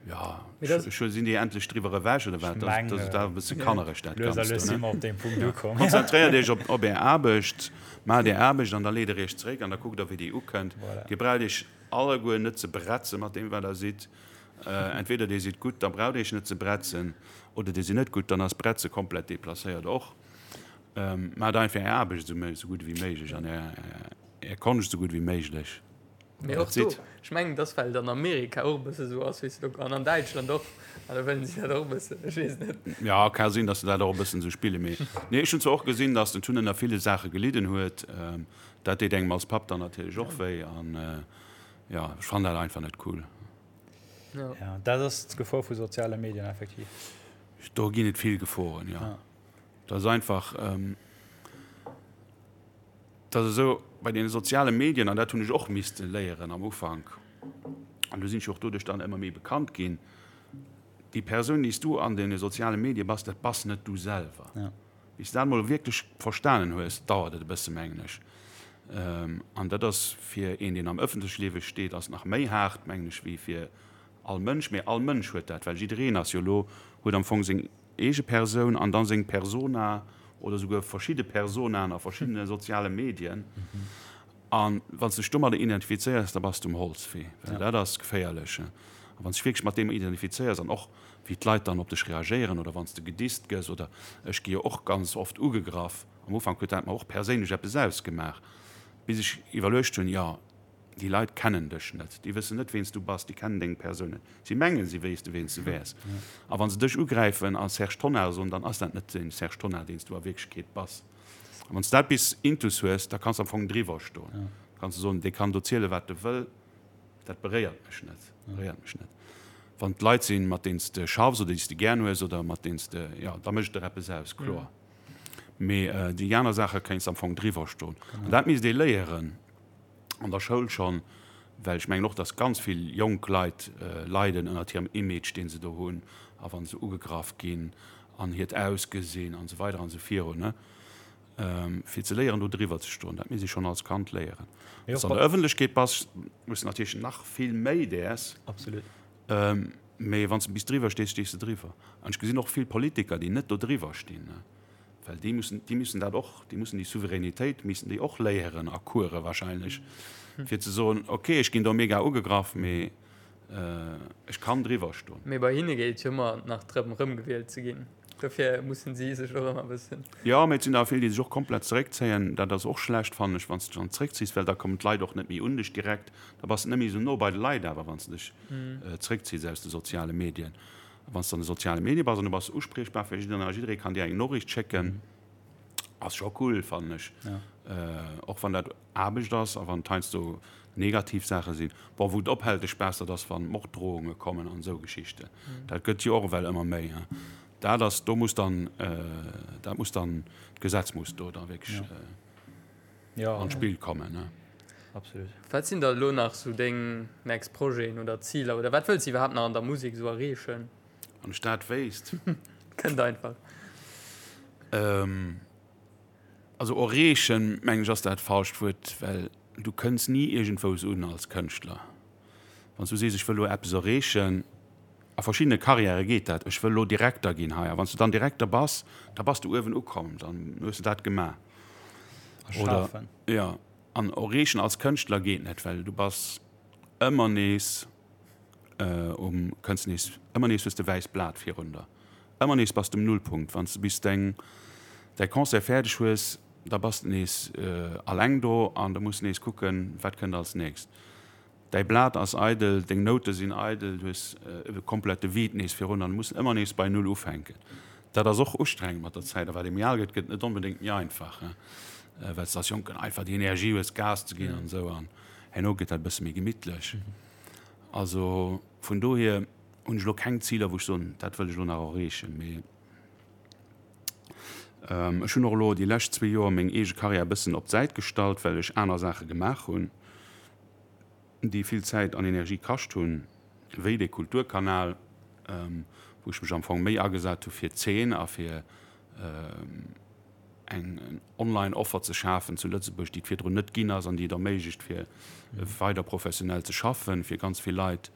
Jo, ech sinn déi endlech driwwer ewech oder wat? Dat ass awer e bësse kannereg dat Ganzt do, ne? Konzentréiert iech op op är Aarbecht, maacht är Aarbecht an da leet der iech zeréck an da kuckt der wéi déi ukënnt. Dir braucht iech alleguer net ze bretze mat deem wat der sidd. Entweder dir sidd gutt, da braucht iech net ze bretzen, oder dir sidd net gutt, dann ass Bretze komplett deplacéiert och. Maacht einfach är Aarbecht esou gutt ewéi méiglech an är Konscht esou gutt ewéi méiglech. Mee och do, ech mengen, dass well et an Amerika och e bësse sou ass, weess de, an an Däitschland och, an da wëllen si dat och e bëssen, ech weess net. Ja, ka sinn, dass se dat och e bëssen esou spillen, mee nee, ech hunn zwar och gesinn, dass den Tun ënner ville Saache gelidden huet. Dat deet engem als Papp dann natierlech och wéi an jo, ech fannen dat einfach net cool. Ja, dat ass d'Gefor vu soziale Medien effektiv. Do ginn et vill Geforen, jo. Dat ass einfach. Et ass esou, bei deene soziale Medien, an dat hunn ech och misste léieren am Ufank, an do sinn ech jo och doduerch dann ëmmer méi bekannt ginn, déi Persoun, déi s du an deene soziale Medie bass, dat bass net du selwer. Bis s de dat emol wierklech verstanen hues, dauert et e bësse mengen ech. An dat ass fir een, deen am ëffentleche Liewe steet, ass nach méi haart, mengen ech, wéi fir all Mënsch. Mee all Mënsch huet dat, well jiddereen ass jo elo, huet am Fong seng eege Persoun an dann seng Persona oder souguer verschidde Personaen a verschiddene soziale Medien. A wann s de dech domadder identifizéiers, da bass de um Holzwee, well dat ass geféierlech. A wann s de dech wierklech mat deem identifizéiers an och wéi d'Leit dann op dech reagéieren oder wann s de gedisst gëss oder ech gi jo och ganz oft ugegraff, am Ufank huet dat mer och perséinlech eppes ausgemaach, bis ech iwwerluecht hunn, jo, Déi Leit kennen dech net, déi wëssen net, ween s du bass, déi kennen deng Persoun net. Si mengen, si wéisste ween s du wäers. A wa se dech ugräifen a Serge Tonnar soen, dann ass dat net den Serge Tonnar, deen s du a Wierklechkeet bass. A wann s du dat bis intus hues, da kanns du am Fong driwwer stoen. Da kanns du soen, dee kann do zielen, wat e wëll, dat beréiert mech net, beréiert mech net. Wann et Leit sinn, mat deenen s de schaffs oder déi s de gären hues oder mat deenen s de, jo, da mécht et der eppes aus, kloer. Mee déi aner Saache kéints am Fong driwwer stoen. An dat misst ee léieren. an der Schoul schonn, well ech mengen och, dass ganz vill jonk Leit leiden ënnert hirem Image, dee se do hunn, a wa se ugegraff ginn an hiert Ausgesinn an esou weider an esou virun, fir ze léieren, do driwwer ze stoen. Dat misst ee schonn als Kand léieren. Wann s de an der Ëffentlechkeet bass, muss de natierlech nach vill méi däers. Absolut. Mee wann s de bis driwwer stees, stees de driwwer. An ech gesinn och vill Politiker, déi net do driwwer stinn. Well déi mussen, déi müssen dat och, déi mussen déi Souveränitéit missen déi och léieren a Course wahrscheinlech, fir ze soen, okay, ech ginn do mega ugegraff, mee ech kann driwwer stoen. Mee bei hinne geet et jo ëmmer nach drëm, erëmgewielt ze ginn. Dofir mussen si sech och ëmmer e bëssen. Jo, mee et sinn der vill, déi sech och komplett zeréckzéien. Dat ass och schlecht, fannen ech, wann s de dech dann zeréckziss, well da kommen d'Leit och net méi un dech direkt. Da bass de net méi esou no bei de Leit awer, wann s de dech zeréckziss aus de soziale Medien. Wann s de an de soziale Medie bass an du bass uspriechbar fir jiddereen a jidderee kann dir eng Noriicht schécken, ass scho cool, fannen ech. Och wann dat Aarbecht ass a wann et heiansdo negativ Saache sinn. Bon, wou et ophält de Spaass, dat ass wann Morddrohunge kommen an esou Geschichten. Dat gëtt jo och ewell ëmmer méi. Dat ass, do muss dann, dat muss dann, d'Gesetz muss do da wierklech an d'Spill kommen. Absolut. Wat sinn da elo nach sou deng next Projeten oder Ziler oder wat wëlls de iwwerhaapt nach an der Musek sou erreechen? Wann ech dat wéisst. Kënnt einfach. Also erreechen, mengen ech, ass dat falscht Wuert, well du kënns ni iergendwous un als Kënschtler. Wann s du sees, ech wëll elo eppes erreechen, a verschiddene Karriäre geet dat, ech wëll elo Direkter ginn hei, a wann s du dann Direkter bass, da bass du uewen ukomm, dann hues du dat gemaach. Oder, jo, an erreechen als Kënschtler geet net, well du bass ëmmer nees um, kënns nees, ëmmer nees hues de wäisst Blat virun der. Ëmmer nees bass de um Nullpunkt. Wann s de bis deng, däi Concert fäerdeg hues, da bass de nees alleng do an da muss de nees kucken, wat kënnt als nächst. Däi Blat ass eidel, deng Noute sinn eidel, du hues e komplette Vide nees virun an du muss ëmmer nees bei Null ufänken. Dat ass och ustrengend mat der Zäit a wat ee méi al gëtt, gëtt et net onbedéngt méi einfach, well s de als Jonken einfach déi Energie hues, Gas ze ginn an esou an herno gëtt dat e bësse méi gemittlech. Also vun dohier hunn ech elo keng Ziler, wou ech soen, dat wëll ech elo nach erreechen. Mee ech hunn och elo déi lescht zwee Joer meng eege Karriär e bëssen op d'Säit gestallt, well ech aner Saache gemaach hunn, déi vill Zäit an Energie kascht hunn, wéi dee Kulturkanal, wou ech mech am Fong méi agesat hu fir d'Zeen a fir eng online Offer ze schafen zu Lëtzebuerg, déi et virdrun net ginn ass an déi et erméiglecht fir weider professionell ze schaffen fir ganz vill Leit.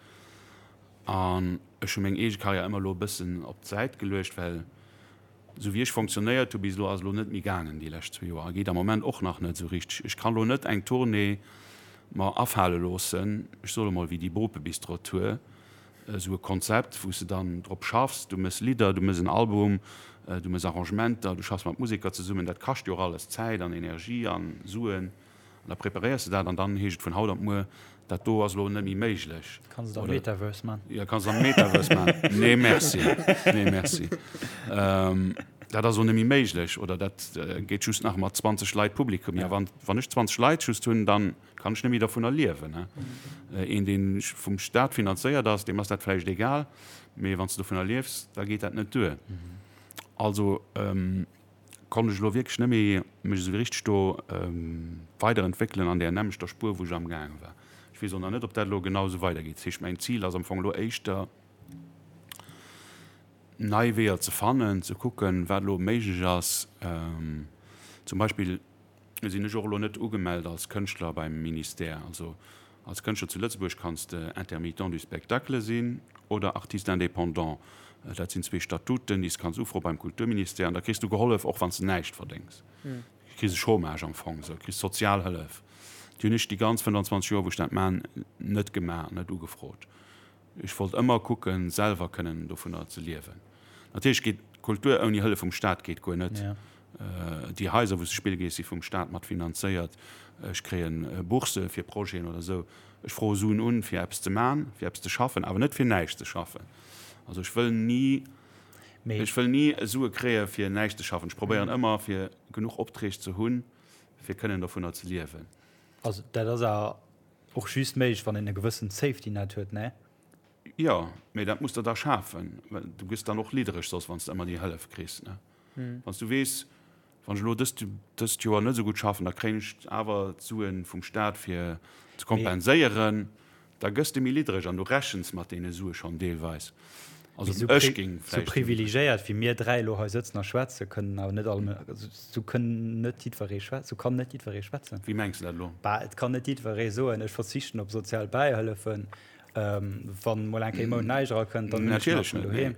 An ech hu meng eege Karriär ëmmer elo e bëssen op d'Säit geluecht, well esou wéi ech fonctionnéiert hu bis elo ass elo net méi gaangen déi lescht zwee Joer a geet am Moment och nach net esou richteg. Ech kann elo net eng Tournée mer afale loossen, ech soe mol wéi déi Bopebistro-Tour, esou e Konzept, wou s de dann drop schaffs, du méchs Lidder, du méchs en Album, du méchs Arrangementer, du schaffs mat Museker zesummen, dat kascht jo och alles Zäit an Energie a Suen an da preparéiers de dat an dann heescht et vun haut op muer, dat do ass elo net méi méiglech. Kanns et am Metaverse man. Jo, kanns et am Metaverse man. Nee merci, nee merci. Dat ass elo net méi méiglech oder dat geet just nach mat 20 Leit Publikum. Jo, wann ech 20 Leit just hunn, dann Kann ech net méi dervunner liewen. Een, dee vum Staat finanzéiert ass, deem ass dat vläicht egal, mee wann s de dovunner liefs, da geet dat net duer. Also konnt ech elo wierklech net méi mech esou richteg do weiderentwéckelen an där nämmlechter Spuer, wou ech amgaange war. Ech weess och nach net, ob dat elo genau esou weidergeet. Dat heescht, mäin Zil ass am Fong elo éischter, nei Weeër ze fannen, ze kucken, wat elo méiglech ass. Zum Beispill sinn ech och elo net ugemellt als Kënschtler beim Ministère. Also als Kënschtler zu Lëtzebuerg kanns de Intermittent du spectacle sinn oder Artiste indépendant. Dat sinn zwee Statuten, déi s kanns ufroe beim Kulturministère an da kriss du gehollef, och wann s de näischt verdéngs. Du kriss e Chômage am Fong, esou, du kriss Sozialhëllef. Déi hunn ech déi ganz 25 Joer, wou ech dat man, net gemaach, net ugefrot. Ech wollt ëmmer kucken, selwer kënnen dovunner ze liewen. Natierlech geet Kultur ouni Hëllef vum Staat geet guer net. Déi Haiser, wou s de spille gees, si vum Staat mat finanzéiert. Ech kréien Bourse fir Projeten oder esou. Ech froe Suen un, fir eppes ze man, fir eppes ze schaffen, awer net fir näischt ze schaffen. Also ech wëll ni, ech wëll ni Sue kréie fir näischt ze schaffen. Ech probéieren ëmmer, fir genuch Opträg ze hunn, fir kënnen dovunner ze liewen. Also dat ass awer Och just méiglech, wann een e gewëssent Safety Net huet, ne? Jo, mee dat muss der da schafen, well du gëss dann och liddereg soss, wann s de ëmmer déi Hëllef kriss, ne? Wann s du weess, wann ech elo dëst, dëst Joer net esou gutt schaffen, da kréien ech awer d'Sue vum Staat fir ze kompenséieren, da gëss de méi liddereg an du rechens mat deene Sue schonn deelweis. Also Mee ech géing vläicht. Sou privilegéiert wéi mir dräi elo hei sëtzen a schwätzen, kënnen awer net all, sou kënnen net jiddweree schwätzen, sou kann net jiddweree schwätzen. Wéi mengs de dat elo? Bah, et kann net jiddweree soen, ech verzichten op sozial Bäihëllefen, wann mol eng Kéier e Mount näischt erakënnt, dann hunn ech nach vun doheem.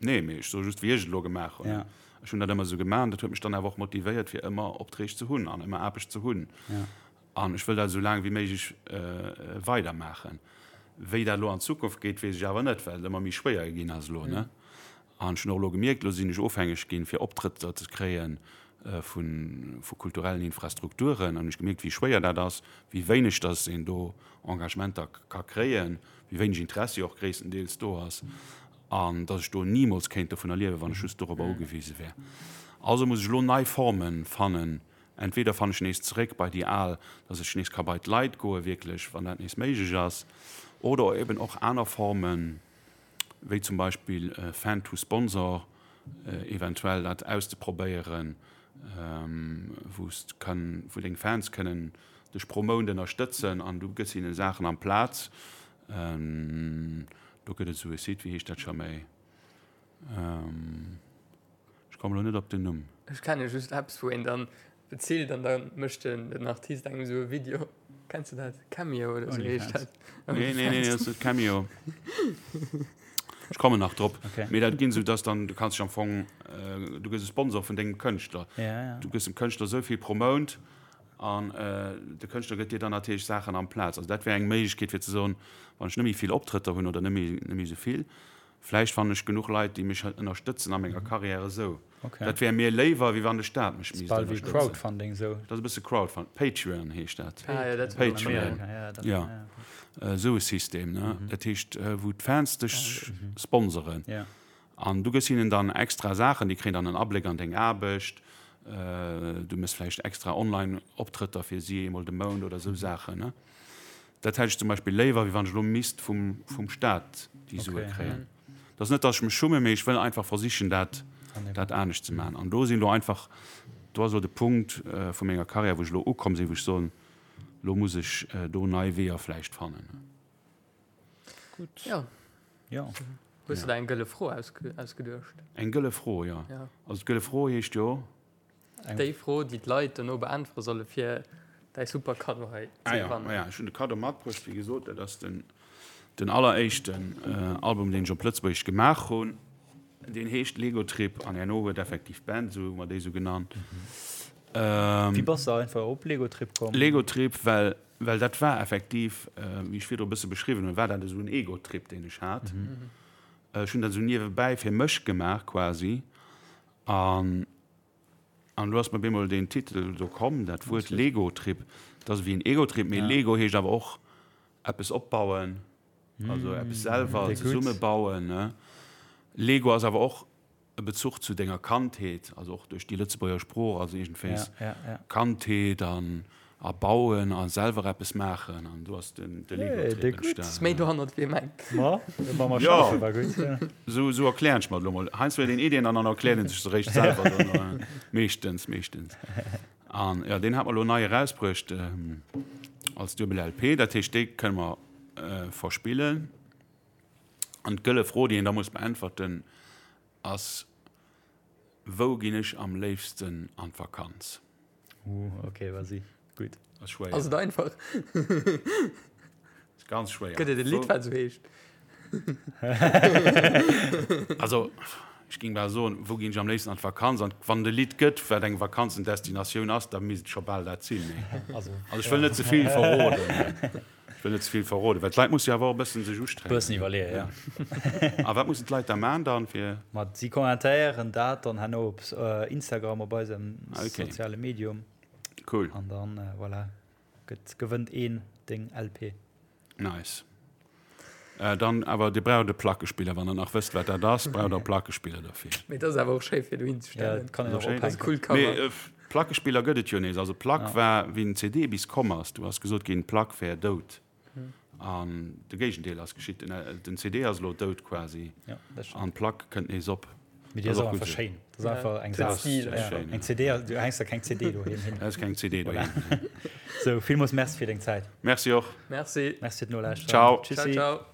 Nee, mee ech soe just, wéi ech et elo gemaach hunn. Ech hunn dat ëmmer esou gemaach an dat huet mech dann awer och motivéiert, fir ëmmer Opträg ze hunn an ëmmer Aarbecht ze hunn. An ech wëll dat esou laang wéi méiglech weidermaachen. Wéi dat elo an Zukunft geet, weess ech awer net, well et ëmmer méi schwéier ginn ass elo, ne? An ech hunn och elo gemierkt, elo sinn ech ofhängeg ginn, fir Optrëtter ze kréie vu vu kulturellen Infrastrukturen. An hunn ech gemierkt, wéi schwéier dat ass, wéi wéineg dass een do Engagementer ka kréien, wéi wéineg Interessi och gréisstendeels do ass. An dass ech do nimools kéint dovunner liewen, wann ech just dorobber ugewise wär. Also muss ech elo nei Forme fannen. Entweder fannen ech nees zeréck bei déi al, dass ech nees ka bei d'Leit goe wierklech, wann dat nees méiglech ass, oder eben och aner Formen, wéi zum Beispill Fan to Sponsor, eventuell dat auszeprobéieren, wou s kann, wou deng Fans kënnen dech pro Mount ënnerstëtzen an du gëss hinnen Saachen amplaz. Do gëtt et esou e Site, wéi heescht dat scho méi? Ech kommen elo net op den Numm. Ech kenne just eppes, wou een dann bezilt an da mécht den Artist engem esou e Video. Kenns de dat? Cameo oder esou heescht dat. Nee, nee, nee, dat ass net Cameo. Ech kommen nach drop. Mee dat ginn esou, dass dann, du kanns dech am Fong, du gëss e Sponsor vun dengem Kënschtler. Du gëss dem Kënschtler esou vill pro Mount An de Kënschtler gëtt dir dann natierlech Saachen amplaz. Also dat wär eng Méiglechkeet fir ze soen, wann ech net méi vill Optrëtter hunn oder net méi, net méi esou vill, vläicht fannen ech genuch Leit, déi mech ënnerstëtzen a menger Karriär esou. Dat wär mir léiwer, wéi wann de Staat mech misst ënnerstëtzen. Bal wéi Crowdfunding esou. Dat ass e bësse Crowdfunding. Patreon heescht dat. Ah jo, dat war an Amerika. Patreon, jo. Esou e System, ne. Dat heescht, wou d'Fans dech sponsoren. An du gëss hinnen dann extra Saachen, déi kréien dann en Abléck an deng Aarbecht, du méchs vläicht extra Online-Optrëtter fir si eemol de Mount oder esou Saachen, ne? Dat hätt ech zum Beispill léiwer, wéi wann ech elo misst vum, vum Staat déi Sue kréien. Dat ass net, datt ech mech schummen, mee ech wëll einfach versichen, dat, dat anescht ze maachen. An do sinn elo einfach, do ass elo de Punkt vu menger Karriär, wou ech elo ukomm sinn, wou ech soen, elo muss ech do nei Weeër vläicht fannen. Gutt. Jo. Jo. Hues du der eng gëlle Fro ausgeduecht? Eng gëlle Fro, jo. Ja. Also d'gëlle Fro heescht jo. Déi Fro, déi d'Leit dono beäntwere solle fir däi super Kaddo hei ze gewannen. Ah jo, ech hunn de Kaddo matbruecht, wéi gesot, dat ass den, den alleréischten Album, deen ech op Lëtzebuergesch gemaach hunn. Deen heescht Lego Trip an herno huet effektiv d'Band esou, hu mer déi esou genannt. Wéi bass de einfach op Lego Trip komm? Lego Trip, well Well dat war effektiv, wéi ech virdru e bësse beschriwwen hunn, war dat esou en Ego-Trip, deen ech hat. Ech hunn dat esou niewebäi fir mech gemaach quasi. An, an do ass mir op eemol deen Titel do komm, dat Wuert Lego-Trip. Dat ass ewéi en Ego-Trip, mee Lego heescht awer och eppes opbauen, also eppes selwer zesummebauen, ne. Lego ass awer och e Bezuch zu denger Kandheet, also och duerch déi Lëtzebuerger Sprooch, also iergendwéis Kandheet an a bauen a selwer eppes maachen an do ass den de Lego-Trip entstanen. Ass méi dohannert wéi ee mengt. Jo, esou esou erklären ech mer et elo mol. Heiansdo huet een Iddien an dann erkläert een sech se réischt selwer dann, meeschtens, meeschtens. An jo, deen hat mer elo nei erausbruecht als duebel LP, dat heescht déi kënne mer verspillen. An d'gëlle Fro, déi een da muss beäntwerten, ass, Wou ginn ech am léifsten an d'Vakanz? Uh, ok, vas-y. Gutt. Ass schwéier. Ass et einfach? Ass ganz schwéier. Gëtt et e Lidd, wat esou heescht? Also, ech géing bal soen, Wou ginn ech am léifsten an d'Vakanz? An wann et e Lidd gëtt, wat eng Vakanzendestinatioun ass, da misst et scho bal dat sinn. Also, ech wëll net ze vill verroden. Ech wëll net ze vill verroden, well d'Leit musse jo awer och e bëssen sech ustrengen. Bëssen iwwerleeën, ja. A wat mussen d'Leit da man dann fir? Ma si kommentéieren dat dann herno op Instagram, op eisem soziale Medium. Cool. An dann, voilà, gëtt, gewënnt een deng LP. Nice. Dann awer, Dir braucht e Plackespiller, wann Der nach wësst, wat dat ass, braucht Der e Plackespiller derfir. Mee dat ass awer och schéi fir dohin ze stellen. Ja, dat kann een och ophänken. Dat ass e coolt Cover. Mee Plackespiller gëtt et jo nees. Also d'Plack war, wéi den CD bis komm ass, du ass gesot ginn, d'Plack wär dout. An de Géigendeel ass geschitt. Den CD ass elo dout quasi an d'Plack kënnt nees op. Mee déi ass och einfach schéin. Dat ass einfach eng Saach. Eng CD, du hänks der keng CD doheem hin. Da ass keng CD doheem. Sou, villmools Merci fir deng Zäit. Merci och. Merci. Merci fir d'Nolauschteren. Ciao. Tschüssi. Ciao, ciao.